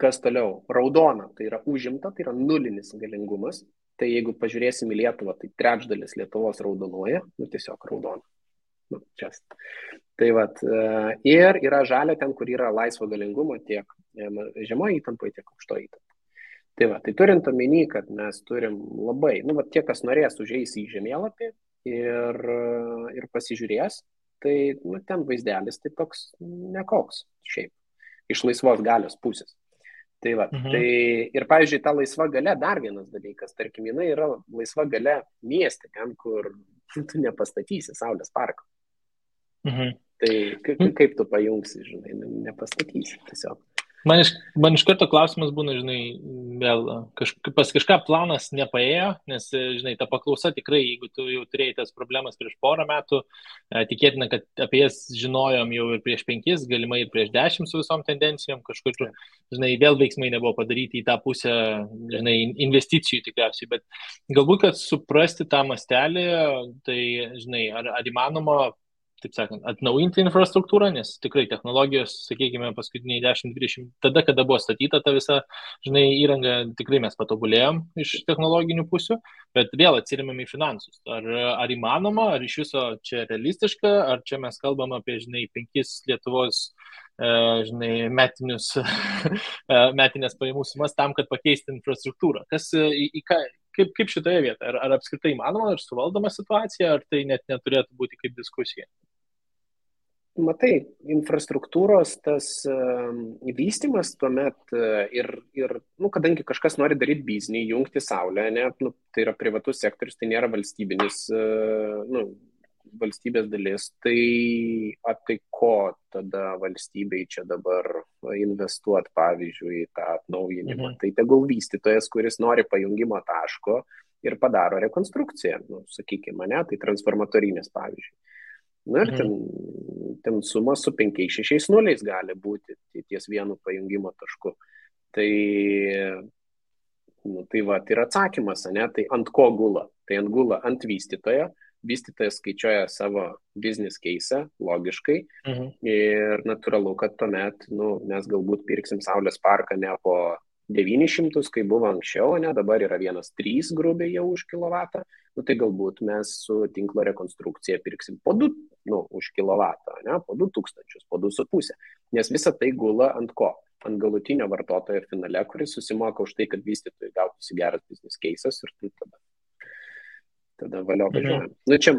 B: kas toliau? Raudona, tai yra užimta, tai yra nulinis galingumas. Tai jeigu pažiūrėsim į Lietuvą, tai 1/3 Lietuvos raudonuoja, nu tiesiog raudona. Nu, tai vat, ir yra žalia ten, kur yra laisvo galingumo tiek žemoje įtampoje, tiek aukštoje įtampoje. Tai va, tai turint omeny, kad mes turim labai, nu, va, tie, kas norės, užeis į žemėlapį ir pasižiūrės, tai nu, ten vaizdelis tai toks nekoks šiaip, iš laisvos galios pusės. Tai va, tai ir pavyzdžiui, ta laisva galia dar vienas dalykas, tarkim, jinai yra laisva galia mieste, ten, kur tu nepastatysi saulės parko. Tai kaip tu pajungsi, žinai, nepastatysi tiesiog.
A: Man iš karto klausimas būna, žinai, vėl pas kažką planas nepaėjo, nes, žinai, ta paklausa tikrai, jeigu tu jau turėjai tas problemas prieš 4 metų, tikėtina, kad apie jas žinojom jau ir prieš 5, galimai ir prieš 10 su visom tendencijom, kažkur, žinai, vėl veiksmai nebuvo padaryti į tą pusę, žinai, investicijų tikriausiai, bet galbūt, kad suprasti tą mastelį, tai, žinai, ar įmanoma, taip sakant, atnaujinti infrastruktūrą, nes tikrai technologijos, sakykime, paskutiniai 10-20, tada, kada buvo statyta ta visa, žinai, įranga, tikrai mes patobulėjom iš technologinių pusių, bet vėl atsirėmėm į finansus. Ar įmanoma, ar iš viso čia realistiška, ar čia mes kalbam apie, žinai, 5 Lietuvos, žinai, metinės pajamų sumas tam, kad pakeisti infrastruktūrą. Kaip šitoje vietoje? Ar apskritai įmanoma, ar suvaldoma situacija, ar tai net neturėtų būti kaip diskusija?
B: Matai, infrastruktūros tas vystymas tuomet ir nu, kadangi kažkas nori daryti biznį, jungti saulę, ne, nu, tai yra privatus sektorius, tai nėra valstybinis, nu, valstybės dalis, tai ko tada valstybei čia dabar investuoti, pavyzdžiui, į tą atnaujinimą. Tai tegul vystytojas, kuris nori pajungimo taško ir padaro rekonstrukciją, nu, sakykime, ne, tai transformatorinės, pavyzdžiui. Na ir ten suma su 5-6 nuliais gali būti ties vienu pajungimo tašku. Tai va, tai yra atsakymas, ne, tai ant ko gula? Tai ant gula ant vystytojo. Vystytojas skaičiuoja savo business case logiškai ir natūralu, kad tuomet mes galbūt pirksim saulės parką ne po 900, kai buvo anksčiau, ne, dabar yra 1,3 grubiai jau už kilovatą, tai galbūt mes su tinklo rekonstrukcija pirksim po 2 už kilovatą, ne, po 2000, po 2,5, nes visa tai gula ant ko? Ant galutinio vartotojo finale, kuris susimoka už tai, kad vystytojai gautųsi geras business cases ir tai tada valio važiuojam. Nu, čia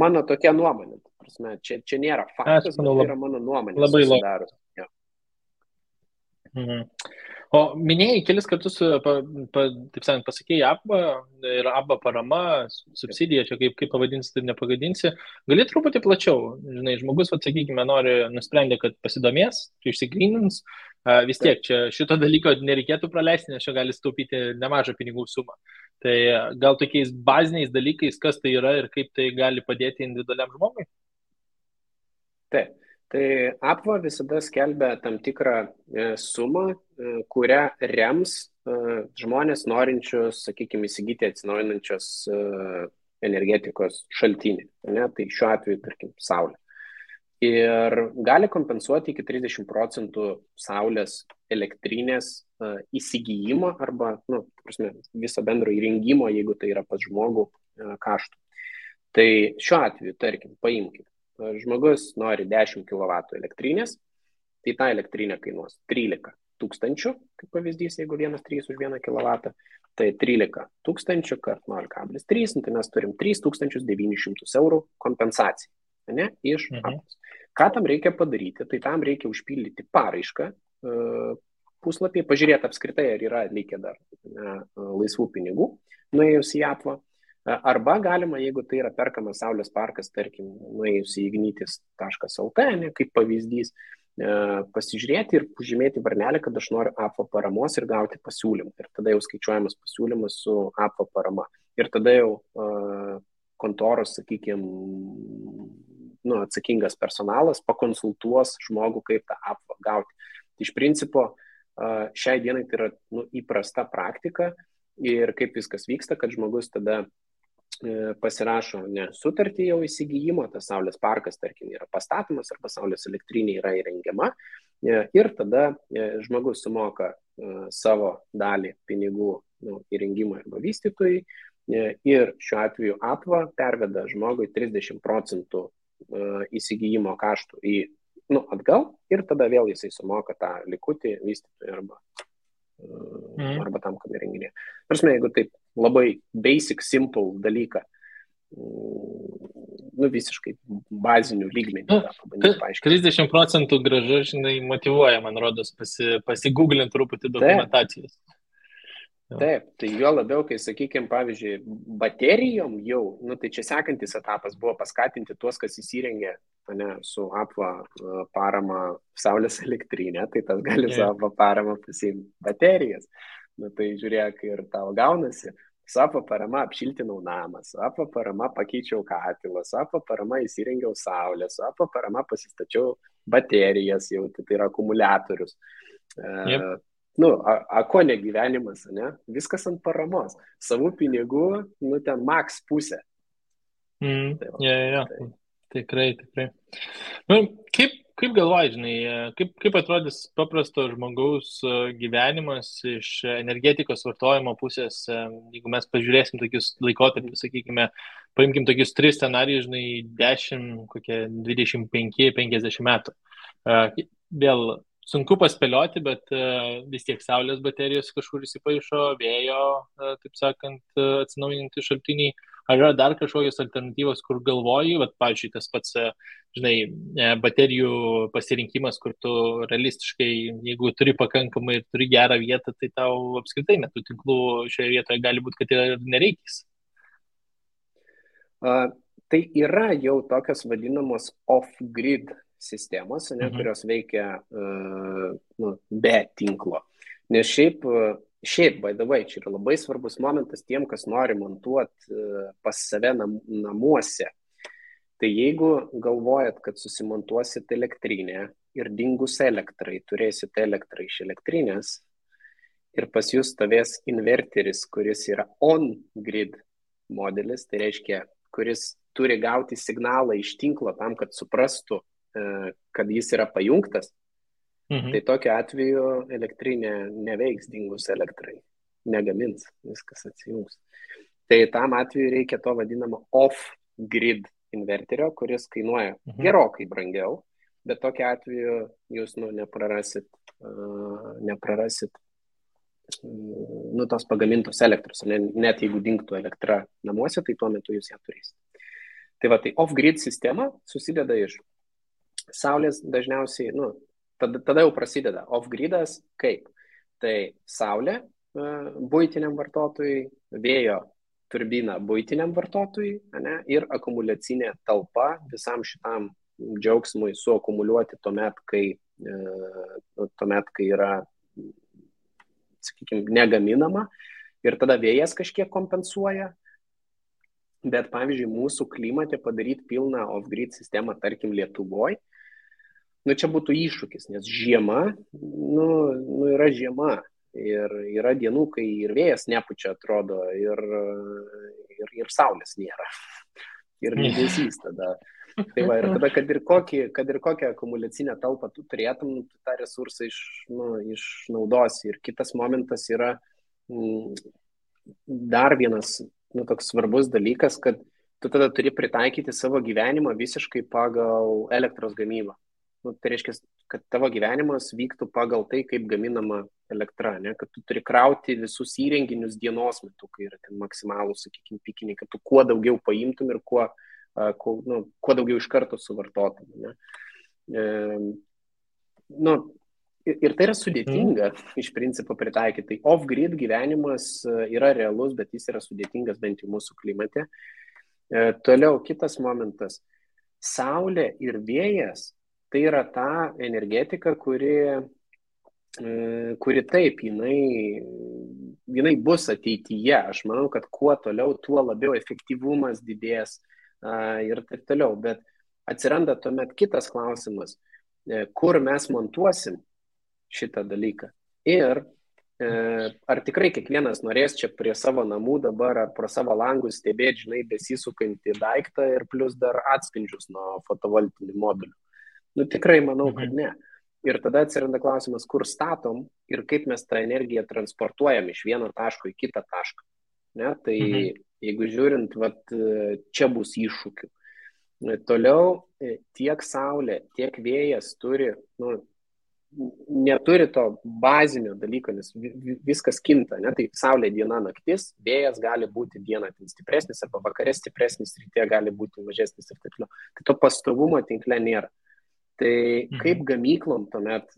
B: mano tokia nuomonė. prasme, čia nėra
A: Aš
B: faktas, bet
A: manau,
B: tai yra mano nuomonė
A: labai logiška.
B: susidarus. Jo.
A: O minėjai kelis kartus, taip sakant, pasakėjai ABBA ir ABBA parama, subsidija, čia kaip pavadinsi, tai nepagadinsi. Gali truputį plačiau, žinai, žmogus, sakykime, nusprendė, kad pasidomės, išsigrynins, vis tiek čia šito dalyko nereikėtų praleisti, nes čia gali staupyti nemažą pinigų sumą. Tai gal tokiais baziniais dalykais, kas tai yra ir kaip tai gali padėti individualiam žmogui?
B: Taip. Tai APVA visada skelbia tam tikrą sumą, kurią rems žmonės norinčius, sakykime, įsigyti atsinaujinančios energetikos šaltinį. Ne? Tai šiuo atveju, tarkim, saulė. Ir gali kompensuoti iki 30% saulės elektrinės įsigijimo arba viso bendro įrengimo, jeigu tai yra pas žmogų kaštų. Tai šiuo atveju, tarkim, paimkime. Žmogus nori 10 kW elektrinės, tai ta elektrinė kainuos 13 tūkstančių, kaip pavyzdys, jeigu 1,3 už 1 kW, tai 13 tūkstančių kart 0,3, tai mes turim 3900 eurų kompensaciją, ne, iš APVAS. Ką tam reikia padaryti? Tai tam reikia užpildyti paraišką puslapį, pažiūrėti apskritai, ar yra likę dar laisvų pinigų, nuėjus į APVA. Arba galima, jeigu tai yra perkamas saulės parkas, tarkim, nuėjus į ignitis.lt, kaip pavyzdys, pasižiūrėti ir pažymėti varnelę, kad aš noriu APVA paramos ir gauti pasiūlymą. Ir tada jau skaičiuojamas pasiūlymas su APVA parama. Ir tada jau kontoros, sakykime, atsakingas personalas pakonsultuos žmogų, kaip tą APVA gauti. Tai iš principo, šiai dienai tai yra įprasta praktika ir kaip viskas vyksta, kad žmogus tada pasirašo sutartį jau įsigijimo, tas saulės parkas, tarkim, yra pastatomas arba saulės elektrinė yra įrengiama ir tada žmogus sumoka savo dalį pinigų įrengimui arba vystytojui ir šiuo atveju APVA perveda žmogui 30% įsigijimo kaštų atgal ir tada vėl jisai sumoka tą likutį vystytojui arba tam, kam įrenginė. Prasme, jeigu taip labai basic, simple dalyką, visiškai bazinių lygmenių.
A: 30% gražu, žinai, motyvuoja, man rodos, pasigūglint truputį dokumentacijos.
B: Taip, tai jo labiau, kai, sakykime, pavyzdžiui, baterijom jau, tai čia sekantis etapas buvo paskatinti tuos, kas įsirengė su APVA parama saulės elektrinė, tai tas gali su APVA parama pasiimti baterijas. Tai žiūrėk, ir tau gaunasi. Su APVA parama apšiltinau namą, su APVA parama pakeičiau katilą, su APVA parama įsirengiau saulę, su APVA parama pasistačiau baterijas, jau tai yra akumuliatorius. Ko ne gyvenimas, ne? Viskas ant paramos. Savų pinigų, ten maks pusė.
A: Tikrai. Kaip galvoji, žinai, kaip atrodys paprasto žmogaus gyvenimas iš energetikos vartojimo pusės, jeigu mes pažiūrėsim tokius laikotarpius, sakykime, paimkim tokius 3 scenarijus, žinai, 10, kokie 25-50 metų. Vėl sunku paspėlioti, bet vis tiek saulės baterijos kažkur įsipaišo, vėjo, taip sakant, atsinaujinti šaltiniai. Ar yra dar kažkokios alternatyvos, kur galvoji, pavyzdžiui, tas pats, žinai, baterijų pasirinkimas, kur tu realistiškai, jeigu turi pakankamai ir turi gerą vietą, tai tau apskritai net tų tinklų šioje vietoje gali būti, kad ir nereikės.
B: Tai yra jau tokios vadinamos off-grid sistemos, kurios veikia be tinklo. Nes šiaip, by the way, čia yra labai svarbus momentas tiem, kas nori montuoti pas save namuose. Tai jeigu galvojat, kad susimontuosit elektrinę ir dingus elektrai, turėsit elektrą iš elektrinės ir pas jūs stovės inverteris, kuris yra on-grid modelis, tai reiškia, kuris turi gauti signalą iš tinklo tam, kad suprastų, kad jis yra pajungtas, tai tokiu atveju elektrinė neveiks dingus elektrai, negamins, viskas atsijungs. Tai tam atveju reikia to vadinamo off-grid inverterio, kuris kainuoja gerokai brangiau, bet tokiu atveju jūs neprarasit tos pagamintos elektros. Net jeigu dingtų elektra namuose, tai tuo metu jūs ją turėsite. Tai va, tai off-grid sistema susideda iš saulės dažniausiai, nu, tada jau prasideda off-gridas kaip. Tai saulė buitiniam vartotojui, vėjo turbina buitiniam vartotojui, ane, ir akumuliacinė talpa visam šitam džiaugsmui suakumuliuoti tuomet, kai yra, sakykime, negaminama ir tada vėjas kažkiek kompensuoja. Bet, pavyzdžiui, mūsų klimate padaryti pilną off-grid sistemą, tarkim, Lietuvoje, čia būtų iššūkis, nes žiema, yra žiema. Ir yra dienų, kai ir vėjas nepučia, atrodo, ir saulės nėra. Ir liūdesys tada. Tai va, ir tada, kad ir kokią akumuliacinę talpą tu turėtum, tu tą resursą išnaudosi. Ir kitas momentas yra dar vienas toks svarbus dalykas, kad tu tada turi pritaikyti savo gyvenimą visiškai pagal elektros gamybą. Tai reiškia, kad tavo gyvenimas vyktų pagal tai, kaip gaminama elektra, ne? Kad tu turi krauti visus įrenginius dienos metu, kai yra ten maksimalų, sakykime, pikiniai, kad tu kuo daugiau paimtum ir kuo daugiau iš karto suvartotum. Ne? Ir tai yra sudėtinga iš principo pritaikyti. Tai off-grid gyvenimas yra realus, bet jis yra sudėtingas bent jau mūsų klimate. Toliau kitas momentas. Saulė ir vėjas tai yra ta energetika, kuri taip, jinai bus ateityje. Aš manau, kad kuo toliau, tuo labiau efektyvumas didės ir taip toliau. Bet atsiranda tuomet kitas klausimas, kur mes montuosim šitą dalyką. Ir ar tikrai kiekvienas norės čia prie savo namų dabar ar pro savo langus stebėti, žinai, besisukantį daiktą ir plus dar atspindžius nuo fotovoltinių modulių. Tikrai manau, kad ne. Ir tada atsiranda klausimas, kur statom ir kaip mes tą energiją transportuojam iš vieno taško į kitą tašką. Ne? Tai jeigu žiūrint, čia bus iššūkių. Toliau tiek saulė, tiek vėjas neturi to bazinio dalyko, nes viskas kinta. Ne? Tai saulė diena naktis, vėjas gali būti dieną stipresnis, arba vakare stipresnis, ryte gali būti mažesnis ir taip toliau. Tai to pastovumo tinkle nėra. Tai kaip gamyklom tuomet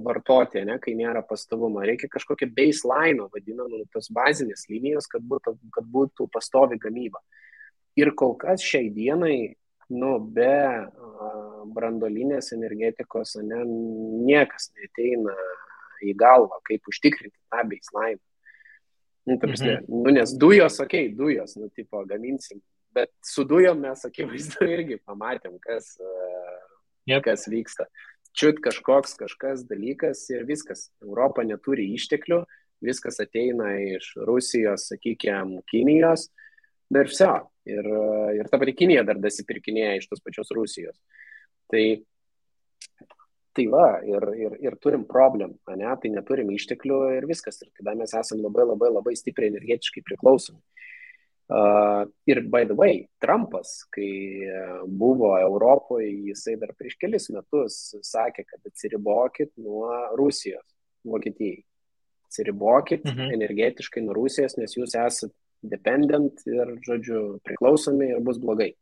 B: vartoti, ne, kai nėra pastovumo? Reikia kažkokio baseline, vadinamą, tos bazinės linijos, kad būtų pastovi gamyba. Ir kol kas šiai dienai, be branduolinės energetikos, niekas neateina į galvą, kaip užtikrinti tą baseline. Nes dujos, dujos, gaminsim. Bet su dujom mes, akivaizdu, irgi pamatėm, kas vyksta. Čiut kažkas dalykas ir viskas. Europa neturi išteklių, viskas ateina iš Rusijos, sakykime, Kinijos, ir viso. Ir ta pati Kinija dar dasipirkinėja iš tos pačios Rusijos. Tai va, ir turim problemą, ne? Tai neturim išteklių ir viskas. Ir tada mes esam labai stipriai energetiškai priklausomi. Ir by the way, Trumpas, kai buvo Europoje, jisai dar prieš kelis metus sakė, kad atsiribokit nuo Rusijos, Vokietijai. Atsiribokit energetiškai nuo Rusijos, nes jūs esate dependent ir, žodžiu, priklausomi ir bus blogai.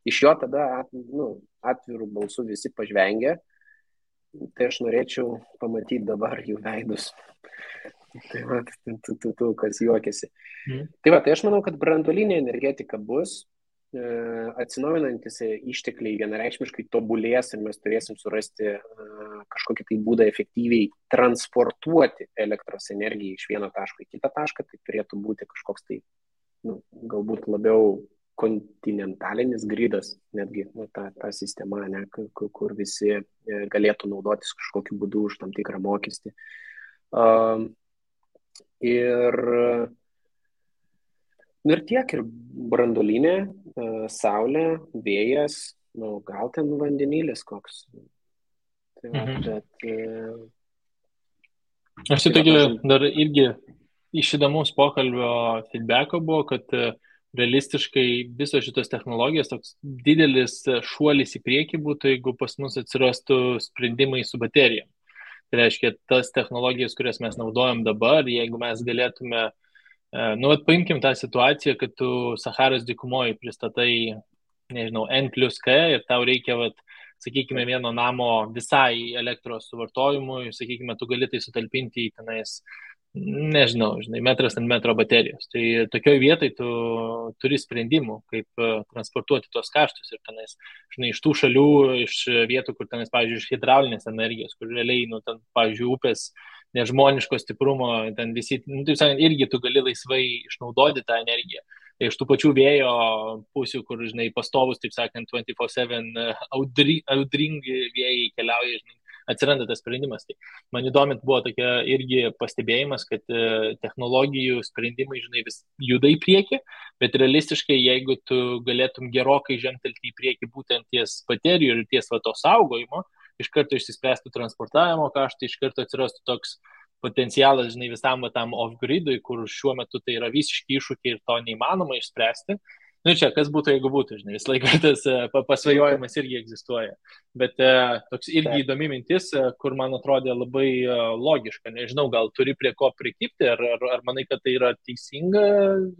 B: Iš jo tada atvirų balsų visi pažvengia, tai aš norėčiau pamatyti dabar jų veidus. Tai va, kas juokiasi. Tai va, tai aš manau, kad branduolinė energetika bus, atsinaujinantis ištekliai vienareikšmiškai tobulės ir mes turėsim surasti kažkokį tai būdą efektyviai transportuoti elektros energiją iš vieno taško į kitą tašką. Tai turėtų būti kažkoks tai, galbūt labiau kontinentalinis gridas, netgi ta sistema, ne, kur visi galėtų naudotis kažkokiu būdu už tam tikrą mokestį. Ir tiek, ir branduolinė, saulė, vėjas, gal ten vandenilis koks.
A: Aš tai tokia dar irgi iš įdomaus pokalbio feedbacko buvo, kad realistiškai visos šitos technologijos toks didelis šuolis į priekį būtų, jeigu pas mus atsirastų sprendimai su baterijom. Tai reiškia, tas technologijas, kurias mes naudojam dabar, jeigu mes galėtume, paimkim tą situaciją, kad tu Saharos dykumoje pristatai nežinau, N plus K ir tau reikia, vat, sakykime, vieno namo visai elektros suvartojimui, sakykime, tu gali tai sutalpinti į tenais, nežinau, žinai, metras ant metro baterijos. Tai tokioj vietoj tu turi sprendimų, kaip transportuoti tuos kaštus ir tenais, žinai, iš tų šalių, iš vietų, kur tenais, pavyzdžiui, iš hidraulinės energijos, kur realiai, nu, ten, pavyzdžiui, upės nežmoniško stiprumo, ten visi, nu, taip sakant, irgi tu gali laisvai išnaudoti tą energiją. Tai iš tų pačių vėjo pusių, kur, žinai, pastovus, taip sakant, 24/7 audringi vėjai keliauja, žinai, atsiranda tas sprendimas. Tai man įdomint buvo tokia irgi pastebėjimas, kad technologijų sprendimai, žinai, vis juda į priekį, bet realistiškai, jeigu tu galėtum gerokai žengtelti į priekį būtent ties baterijų ir ties va to saugojimo, iš karto išsispręstų transportavimo kaštai, iš karto atsirastų toks potencialas, žinai, visam tam off-gridui, kur šiuo metu tai yra visiški iššūkiai ir to neįmanoma išspręsti. Nu čia, kas būtų, jeigu būtų, žinai, vis laiką tas pasvajojimas irgi egzistuoja. Bet toks irgi įdomi mintis, kur man atrodė labai logiška. Nežinau, gal turi prie ko prikipti, ar manai, kad tai yra teisinga,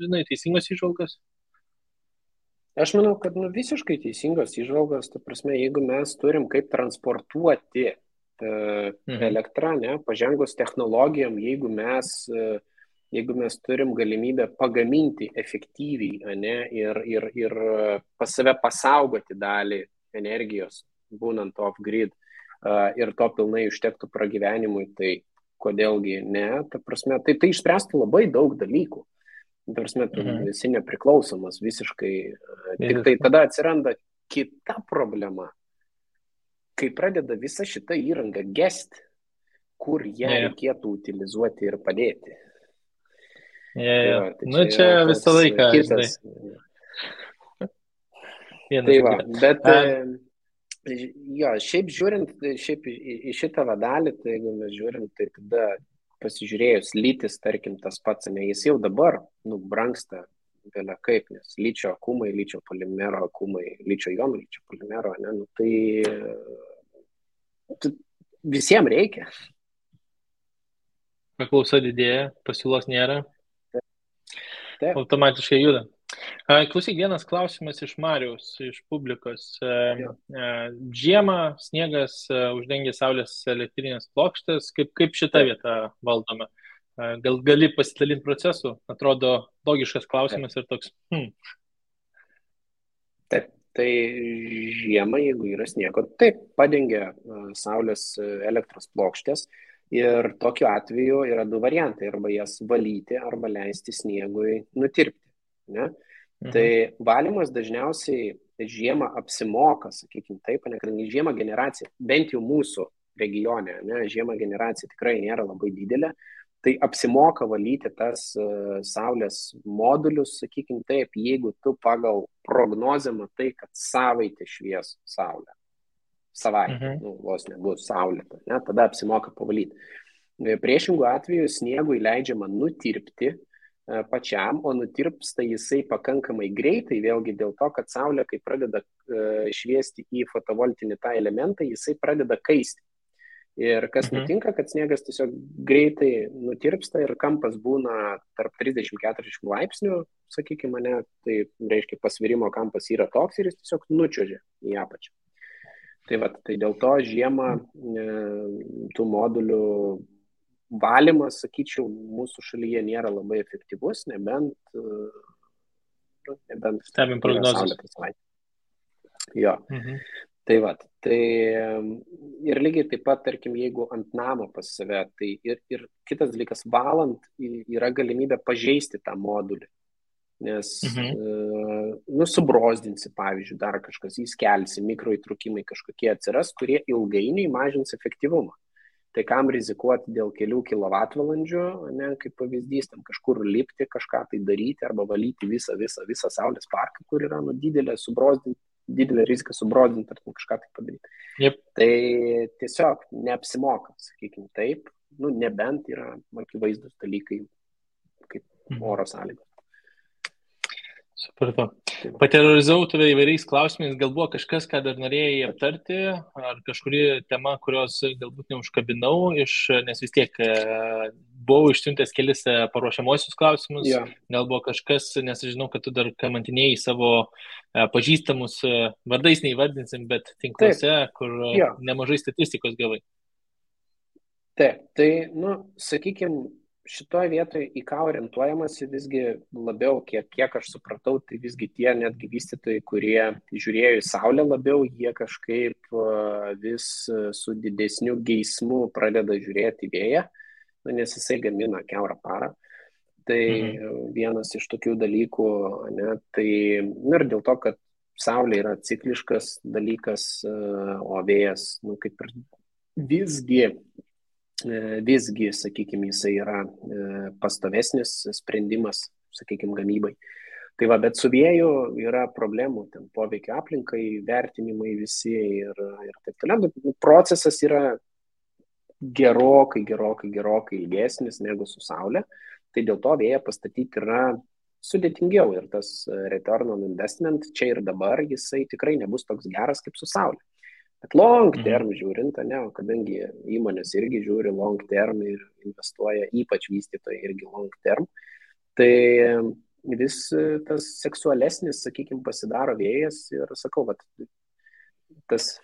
A: žinai, teisingos įžvalgos?
B: Aš manau, kad visiškai teisingos įžvalgos, ta prasme, jeigu mes turim kaip transportuoti elektrą, ne, pažengus technologijom, jeigu mes turim galimybę pagaminti efektyviai, ne, ir pas save pasaugoti dalį energijos, būnant off-grid, ir to pilnai užtektų pragyvenimui, tai kodėlgi ne, ta prasme, tai išspręstų labai daug dalykų. Ta prasme, tu esi nepriklausomas visiškai. Tik tai tada atsiranda kita problema, kai pradeda visa šita įranga gesti, kur ją reikėtų utilizuoti ir padėti.
A: Tai nu čia visą laiką.
B: Kitas. Tai va, bet šiaip žiūrint, šiaip į šitą vadalį, tai jeigu mes žiūrim, tai tada pasižiūrėjus lytis, tarkim, tas pats, ne, jis jau dabar, brangsta vėlia kaip, nes lyčio akumai, lyčio polimero akumai, lyčio jonų, lyčio polimero, ne, tai visiems reikia.
A: Paklausa didėja, pasiūlos nėra.
B: Taip.
A: Automatiškai juda. Klausyk, vienas klausimas iš Mariaus, iš publikos. Žiemą sniegas uždengia saulės elektrinės plokštės. Kaip šitą vietą valdome? Gal gali pasidalinti procesu? Atrodo logiškas klausimas ir toks.
B: Taip, tai žiemą, jeigu yra sniego, taip, padengia saulės elektros plokštės. Ir tokiu atveju yra du variantai, arba jas valyti, arba leisti sniegui nutirpti. Ne? Tai valymas dažniausiai žiemą apsimoka, sakykime taip, kadangi žiemą generacija, bent jau mūsų regione, ne, žiemą generacija tikrai nėra labai didelė, tai apsimoka valyti tas saulės modulius, sakykime taip, jeigu tu pagal prognozę matai, kad savaitę švies saulė. Savaitę, vos nebus saulėta, ne, tada apsimoka pavalyti. Priešingų atveju sniegui leidžiama nutirpti pačiam, o nutirpsta jisai pakankamai greitai, vėlgi dėl to, kad saulė, kai pradeda šviesti į fotovoltinį tą elementą, jisai pradeda kaisti. Ir kas nutinka, kad sniegas tiesiog greitai nutirpsta ir kampas būna tarp 30-40 laipsnių, sakykime, ne, tai reiškia pasvirimo kampas yra toks ir jis tiesiog nučiuožia į apačią. Tai dėl to žiemą tų modulių valymas, sakyčiau, mūsų šalyje nėra labai efektyvus, nebent
A: stebim prognozes.
B: Jo. Tai ir lygiai taip pat, tarkim, jeigu ant namo pas save, tai ir kitas dalykas, valant yra galimybė pažeisti tą modulį. Nes subrozdinsi, pavyzdžiui, dar kažkas, įskelsi, mikroįtrūkimai kažkokie atsiras, kurie ilgainiui mažins efektyvumą. Tai kam rizikuoti dėl kelių kilovatvalandžių, ne, kaip pavyzdys, tam kažkur lipti, kažką tai daryti arba valyti visą saulės parką, kur yra didelė rizika subrozdinti ar kažką tai padaryti.
A: Yep.
B: Tai tiesiog neapsimoka, sakykime taip, nebent yra akivaizdūs dalykai kaip oro sąlygos.
A: Supratau. Paterorizavau tave įvairiais klausimais, gal buvo kažkas, ką dar norėjai aptarti, ar kažkuri tema, kurios galbūt neužkabinau, nes vis tiek buvau išsiuntęs kelis paruošiamosius klausimus,
B: Jo.
A: gal buvo kažkas, nes aš žinau, kad tu dar kamantinėjai savo pažįstamus vardais neįvardinsim, bet tinkluose, kur
B: Jo.
A: nemažai statistikos gavai.
B: Taip, tai, sakykime, šitoje vietoje į ką orientuojamasi visgi labiau, kiek aš supratau, tai visgi tie netgi vystytojai, kurie žiūrėjo į Saulę labiau, jie kažkaip vis su didesniu geismu pradeda žiūrėti į vėją, nes jisai gamina kiaurą parą. Tai vienas iš tokių dalykų, ne, tai ir dėl to, kad Saulė yra cikliškas dalykas, o vėjas, kaip ir visgi, sakykime, jisai yra pastovesnis sprendimas, sakykime, gamybai. Tai va, bet su vėju yra problemų, ten poveikio aplinkai, vertinimai visi ir taip toliau. Procesas yra gerokai ilgesnis negu su Saulė. Tai dėl to vėją pastatyti yra sudėtingiau ir tas return on investment čia ir dabar jisai tikrai nebus toks geras kaip su Saulė. Bet long term žiūrint, kadangi įmonės irgi žiūri long term ir investuoja, ypač vystytojai irgi long term, tai vis tas seksualesnis, sakykime, pasidaro vėjas ir sakau, tas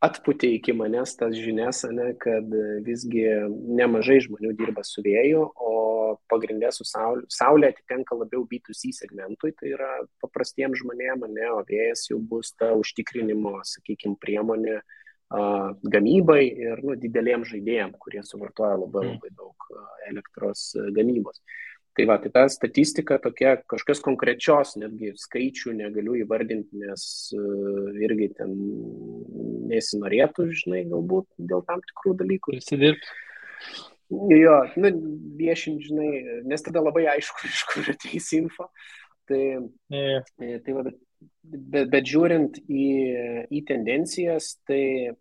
B: atputė iki manęs tas žinias, kad visgi nemažai žmonių dirba su vėju, o pagrindė su Saulė atitenka labiau B2C segmentui, tai yra paprastiems žmonėms, o vėjas jau bus ta užtikrinimo, sakykime, priemonė gamybai ir dideliem žaidėjim, kurie suvartoja labai daug elektros gamybos. Tai va, tai ta statistika tokia, kažkas konkrečios, netgi skaičių negaliu įvardinti, nes irgi ten nesinorėtų, galbūt dėl tam tikrų dalykų.
A: Prisidirbti.
B: Jo, viešinti, nes tada labai aišku, iš kur ateis info. Tai va, bet žiūrint į tendencijas, tai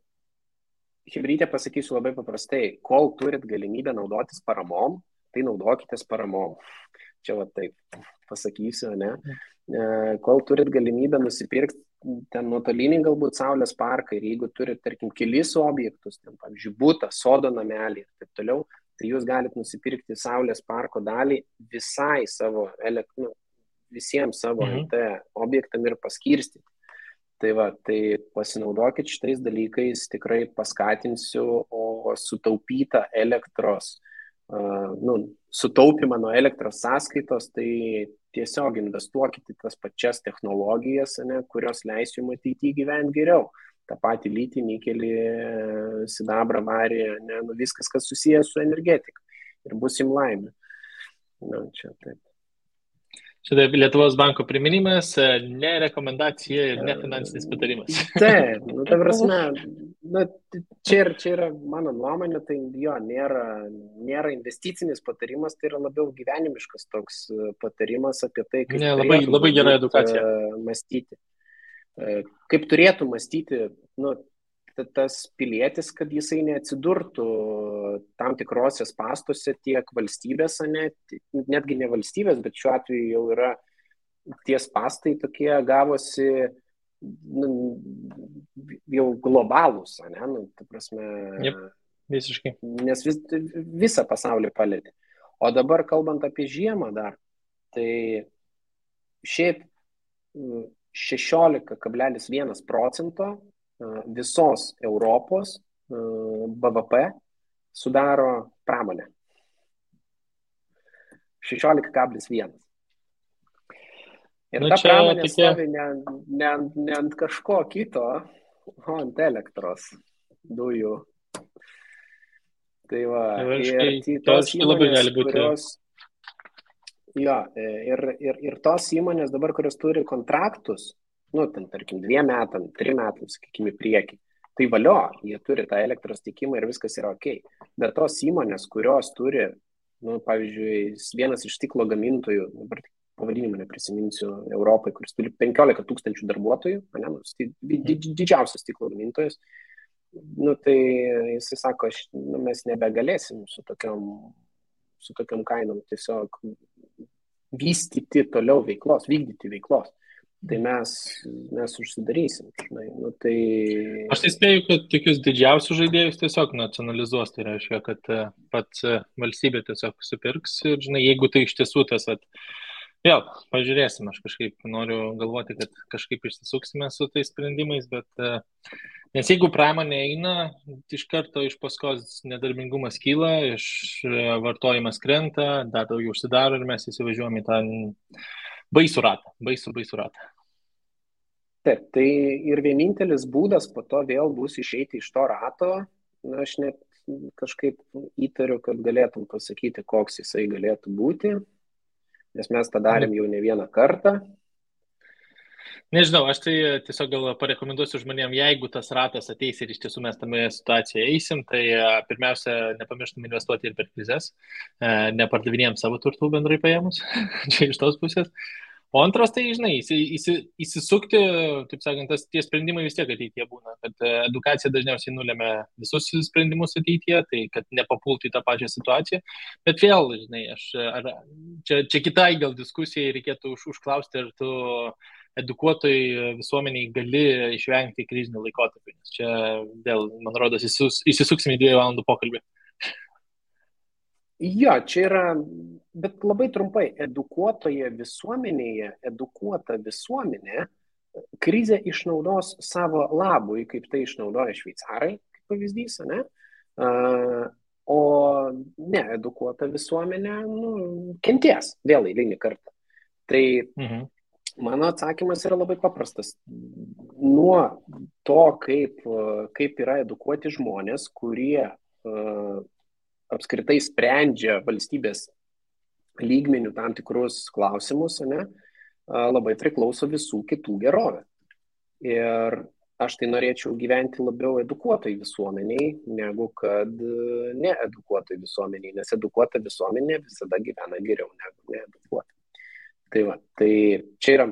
B: Chebrytė pasakysiu labai paprastai, kol turit galimybę naudotis paramom, tai naudokitės paramom. Čia va taip pasakysiu, ne? Kol turit galimybę nusipirkti ten nuotolinį galbūt Saulės parką ir jeigu turit, tarkim, kelis objektus, ten, pavyzdžiui, butą, sodo namelį ir taip toliau, tai jūs galite nusipirkti Saulės parko dalį visai savo, visiems savo NT objektam ir paskirstyti. Tai va, tai pasinaudokit šitais dalykais, tikrai paskatinsiu, o sutaupytą elektros, sutaupimą nuo elektros sąskaitos, tai tiesiog investuokit į tas pačias technologijas, kurios leis jums ateityje gyventi geriau. Ta pati lytį, nikelį, sidabrą, varį, viskas, kas susijęs su energetika. Ir bus jums laimė. Čia taip.
A: Čia Lietuvos banko priminimas, ne rekomendacija ir ne finansinis patarimas.
B: Taip, ta prasme, čia yra mano nuomonė, tai jo, nėra investicinis patarimas, tai yra labiau gyvenimiškas toks patarimas apie tai, kaip
A: labai gera edukacija.
B: Mąstyti. Kaip turėtų mąstyti, tas pilietis, kad jisai neatsidurtų tam tikrose spąstuose tiek valstybės, netgi ne valstybės, bet šiuo atveju jau yra tie spąstai tokie gavosi jau globalūs, ta prasme,
A: visiškai.
B: Nes visą pasaulį palietė. O dabar kalbant apie žiemą dar, tai šiaip 16,1% visos Europos BVP sudaro pramonė. 16,1. Ir ta pramonė stovi ne ant kažko kito, o ant elektros dujų. Tai va, ir tos įmonės, kurios... Jo, ir tos įmonės dabar, kurios turi kontraktus, ten, tarkim, 2 metam, 3 metam, sakykime, priekį. Tai valio, jie turi tą elektros tiekimą ir viskas yra ok. Bet tos įmonės, kurios turi, pavyzdžiui, vienas iš stiklo gamintojų, dabar pavadinimą neprisiminsiu, Europai, kuris turi 15 000 darbuotojų, didžiausias stiklo gamintojas, tai jisai sako, mes nebegalėsim su tokiom kainom tiesiog vystyti toliau veiklos, vykdyti veiklos. tai mes užsidarysim. Žinai. Nu, tai...
A: Aš tai spėju, kad tokius didžiausius žaidėjus tiesiog nacionalizuos, tai reiškia, kad pats valstybė tiesiog supirks ir, žinai, jeigu tai iš tiesų tas, vėl, pažiūrėsim, aš kažkaip noriu galvoti, kad kažkaip išsisuksime su tais sprendimais, bet nes jeigu pramonė eina, iš karto iš paskos nedarbingumas kyla, vartojimas krenta, dar daugiau užsidaro ir mes įsivažiuojame į tą baisų ratą, baisų ratą.
B: Taip, tai ir vienintelis būdas po to vėl bus išeiti iš to rato, na, aš net kažkaip įtariu, kad galėtum pasakyti, koks jisai galėtų būti, nes mes tą darėm jau ne vieną kartą.
A: Nežinau, aš tai tiesiog gal parekomenduosiu žmonėm, jeigu tas ratas ateis ir iš tiesų mes tame situacijoje eisim, tai pirmiausia, nepamirštum investuoti ir per krizės, nepardavinėjom savo turtų bendrai paėmus, čia iš tos pusės. O antras, tai, žinai, įsisukti, taip sakant, tie sprendimai vis tiek ateityje būna, kad edukacija dažniausiai nulėmė visus sprendimus ateityje, tai kad nepapultų į tą pačią situaciją. Bet vėl, žinai, čia kitai gal diskusijai reikėtų užklausti, ar tu edukuotojai visuomeniai gali išvengti krizinių laikotarpių, nes čia vėl, man rodos, įsisuksim į 2 valandų pokalbį.
B: Jo, čia yra, bet labai trumpai, edukuota visuomenė krizę išnaudos savo labui, kaip tai išnaudoja šveicarai, kaip pavyzdys, ne? O needukuota visuomenė kenties vėl eilinį kartą. Tai mano atsakymas yra labai paprastas. Nuo to, kaip yra edukuoti žmonės, kurie apskritai sprendžia valstybės lygmenių tam tikrus klausimus, ne, labai priklauso visų kitų gerovė. Ir aš tai norėčiau gyventi labiau edukuotai visuomeniai, negu kad needukuotai visuomeniai, nes edukuota visuomenė visada gyvena geriau negu needukuota. Tai čia yra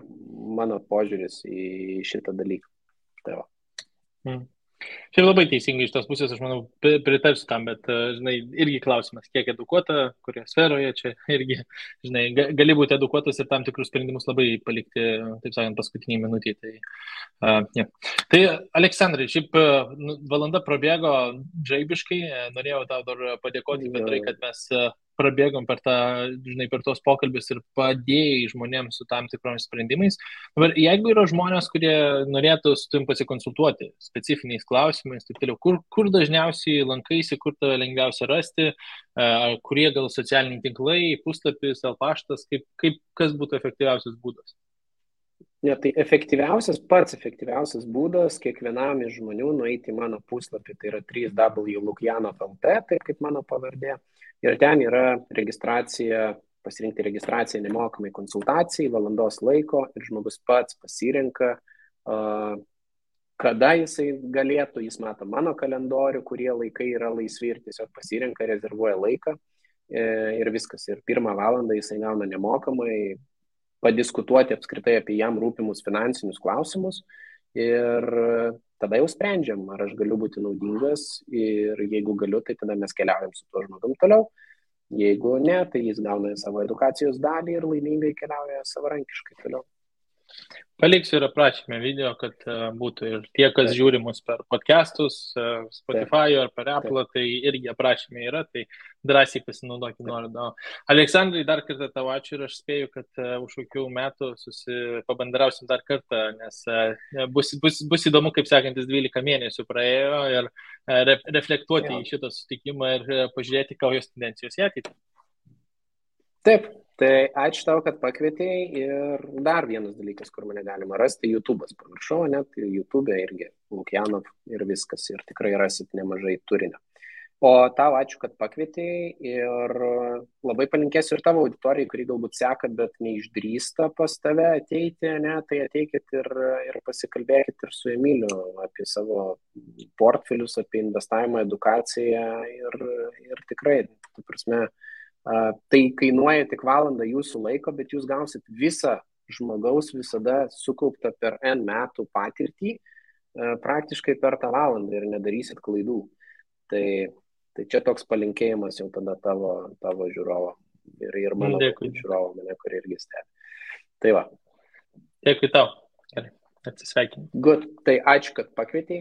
B: mano požiūris į šitą dalyką. Tai va.
A: Čia labai teisingai iš tos pusės, aš manau, pritarsiu tam, bet, žinai, irgi klausimas, kiek edukuota, kurioje sferoje, čia irgi, žinai, gali būti edukuotas ir tam tikrus sprendimus labai palikti, taip sakant, paskutiniai minutį. Tai Aleksandrai, šiaip valanda prabėgo žaibiškai, norėjau tau dar padėkoti bendrai, kad mes prabėgom per tos pokalbis ir padėjai žmonėms su tam tikromis sprendimais. Dabar, jeigu yra žmonės, kurie norėtų su tavim pasikonsultuoti specifiniais klausimais, taip toliau, kur dažniausiai lankaisi, kur tave lengviausia rasti, kurie gal socialiniai tinklai, puslapis, paštas, kas būtų efektyviausias būdas?
B: Ne, tai pats efektyviausias būdas kiekvienam iš žmonių nueiti į mano puslapį, tai yra www.lukjanov.lt, taip kaip mano pavardė. Ir ten yra pasirinkti registraciją nemokamai konsultacijai, valandos laiko ir žmogus pats pasirenka, kada jisai galėtų, jis mato mano kalendorių, kurie laikai yra laisvi ir tiesiog pasirenka, rezervuoja laiką ir viskas. Ir 1 valandą jisai gauna nemokamai padiskutuoti apskritai apie jam rūpimus finansinius klausimus ir tada jau sprendžiam, ar aš galiu būti naudingas ir jeigu galiu, tai tada mes keliaujam su tuo žmogum toliau. Jeigu ne, tai jis gauna savo edukacijos dalį ir laimingai keliauja savarankiškai toliau.
A: Paliksiu ir aprašymę video, kad būtų ir tie, kas žiūri mus per podcastus, Spotify ar per Apple, tai irgi aprašymė yra, tai drąsiai pasinaudokime nuorodą. Aleksandrai, dar kartą tau ačiū ir aš spėju, kad už kokių metų pabandrausim dar kartą, nes bus įdomu, kaip sekantis 12 mėnesių praėjo ir reflektuoti į šitą sutikimą ir pažiūrėti, kokios tendencijos į ateitį.
B: Taip. Tai ačiū tau, kad pakvietėjai ir dar vienas dalykas, kur mane galima rasti, YouTube'as, pamiršau, net YouTube'e irgi Lukjanov ir viskas ir tikrai rasit nemažai turinio. O tau ačiū, kad pakvietėjai ir labai palinkėsiu ir tavo auditorijai, kuri galbūt seka, bet neišdrįsta pas tave ateiti, ne, tai ateikit ir pasikalbėkit ir su Emiliu apie savo portfelius, apie investavimą, edukaciją ir tikrai, tu prasme, tai kainuoja tik valandą jūsų laiko, bet jūs gausit visą žmogaus visada sukauptą per N metų patirtį praktiškai per tą valandą ir nedarysit klaidų. Tai čia toks palinkėjimas jau tada tavo žiūrovo ir mano žiūrovo, mane, kur irgi stebi. Tai va.
A: Dėkui tau. atsisveikinti.
B: Good, tai ačiū, kad pakvietei.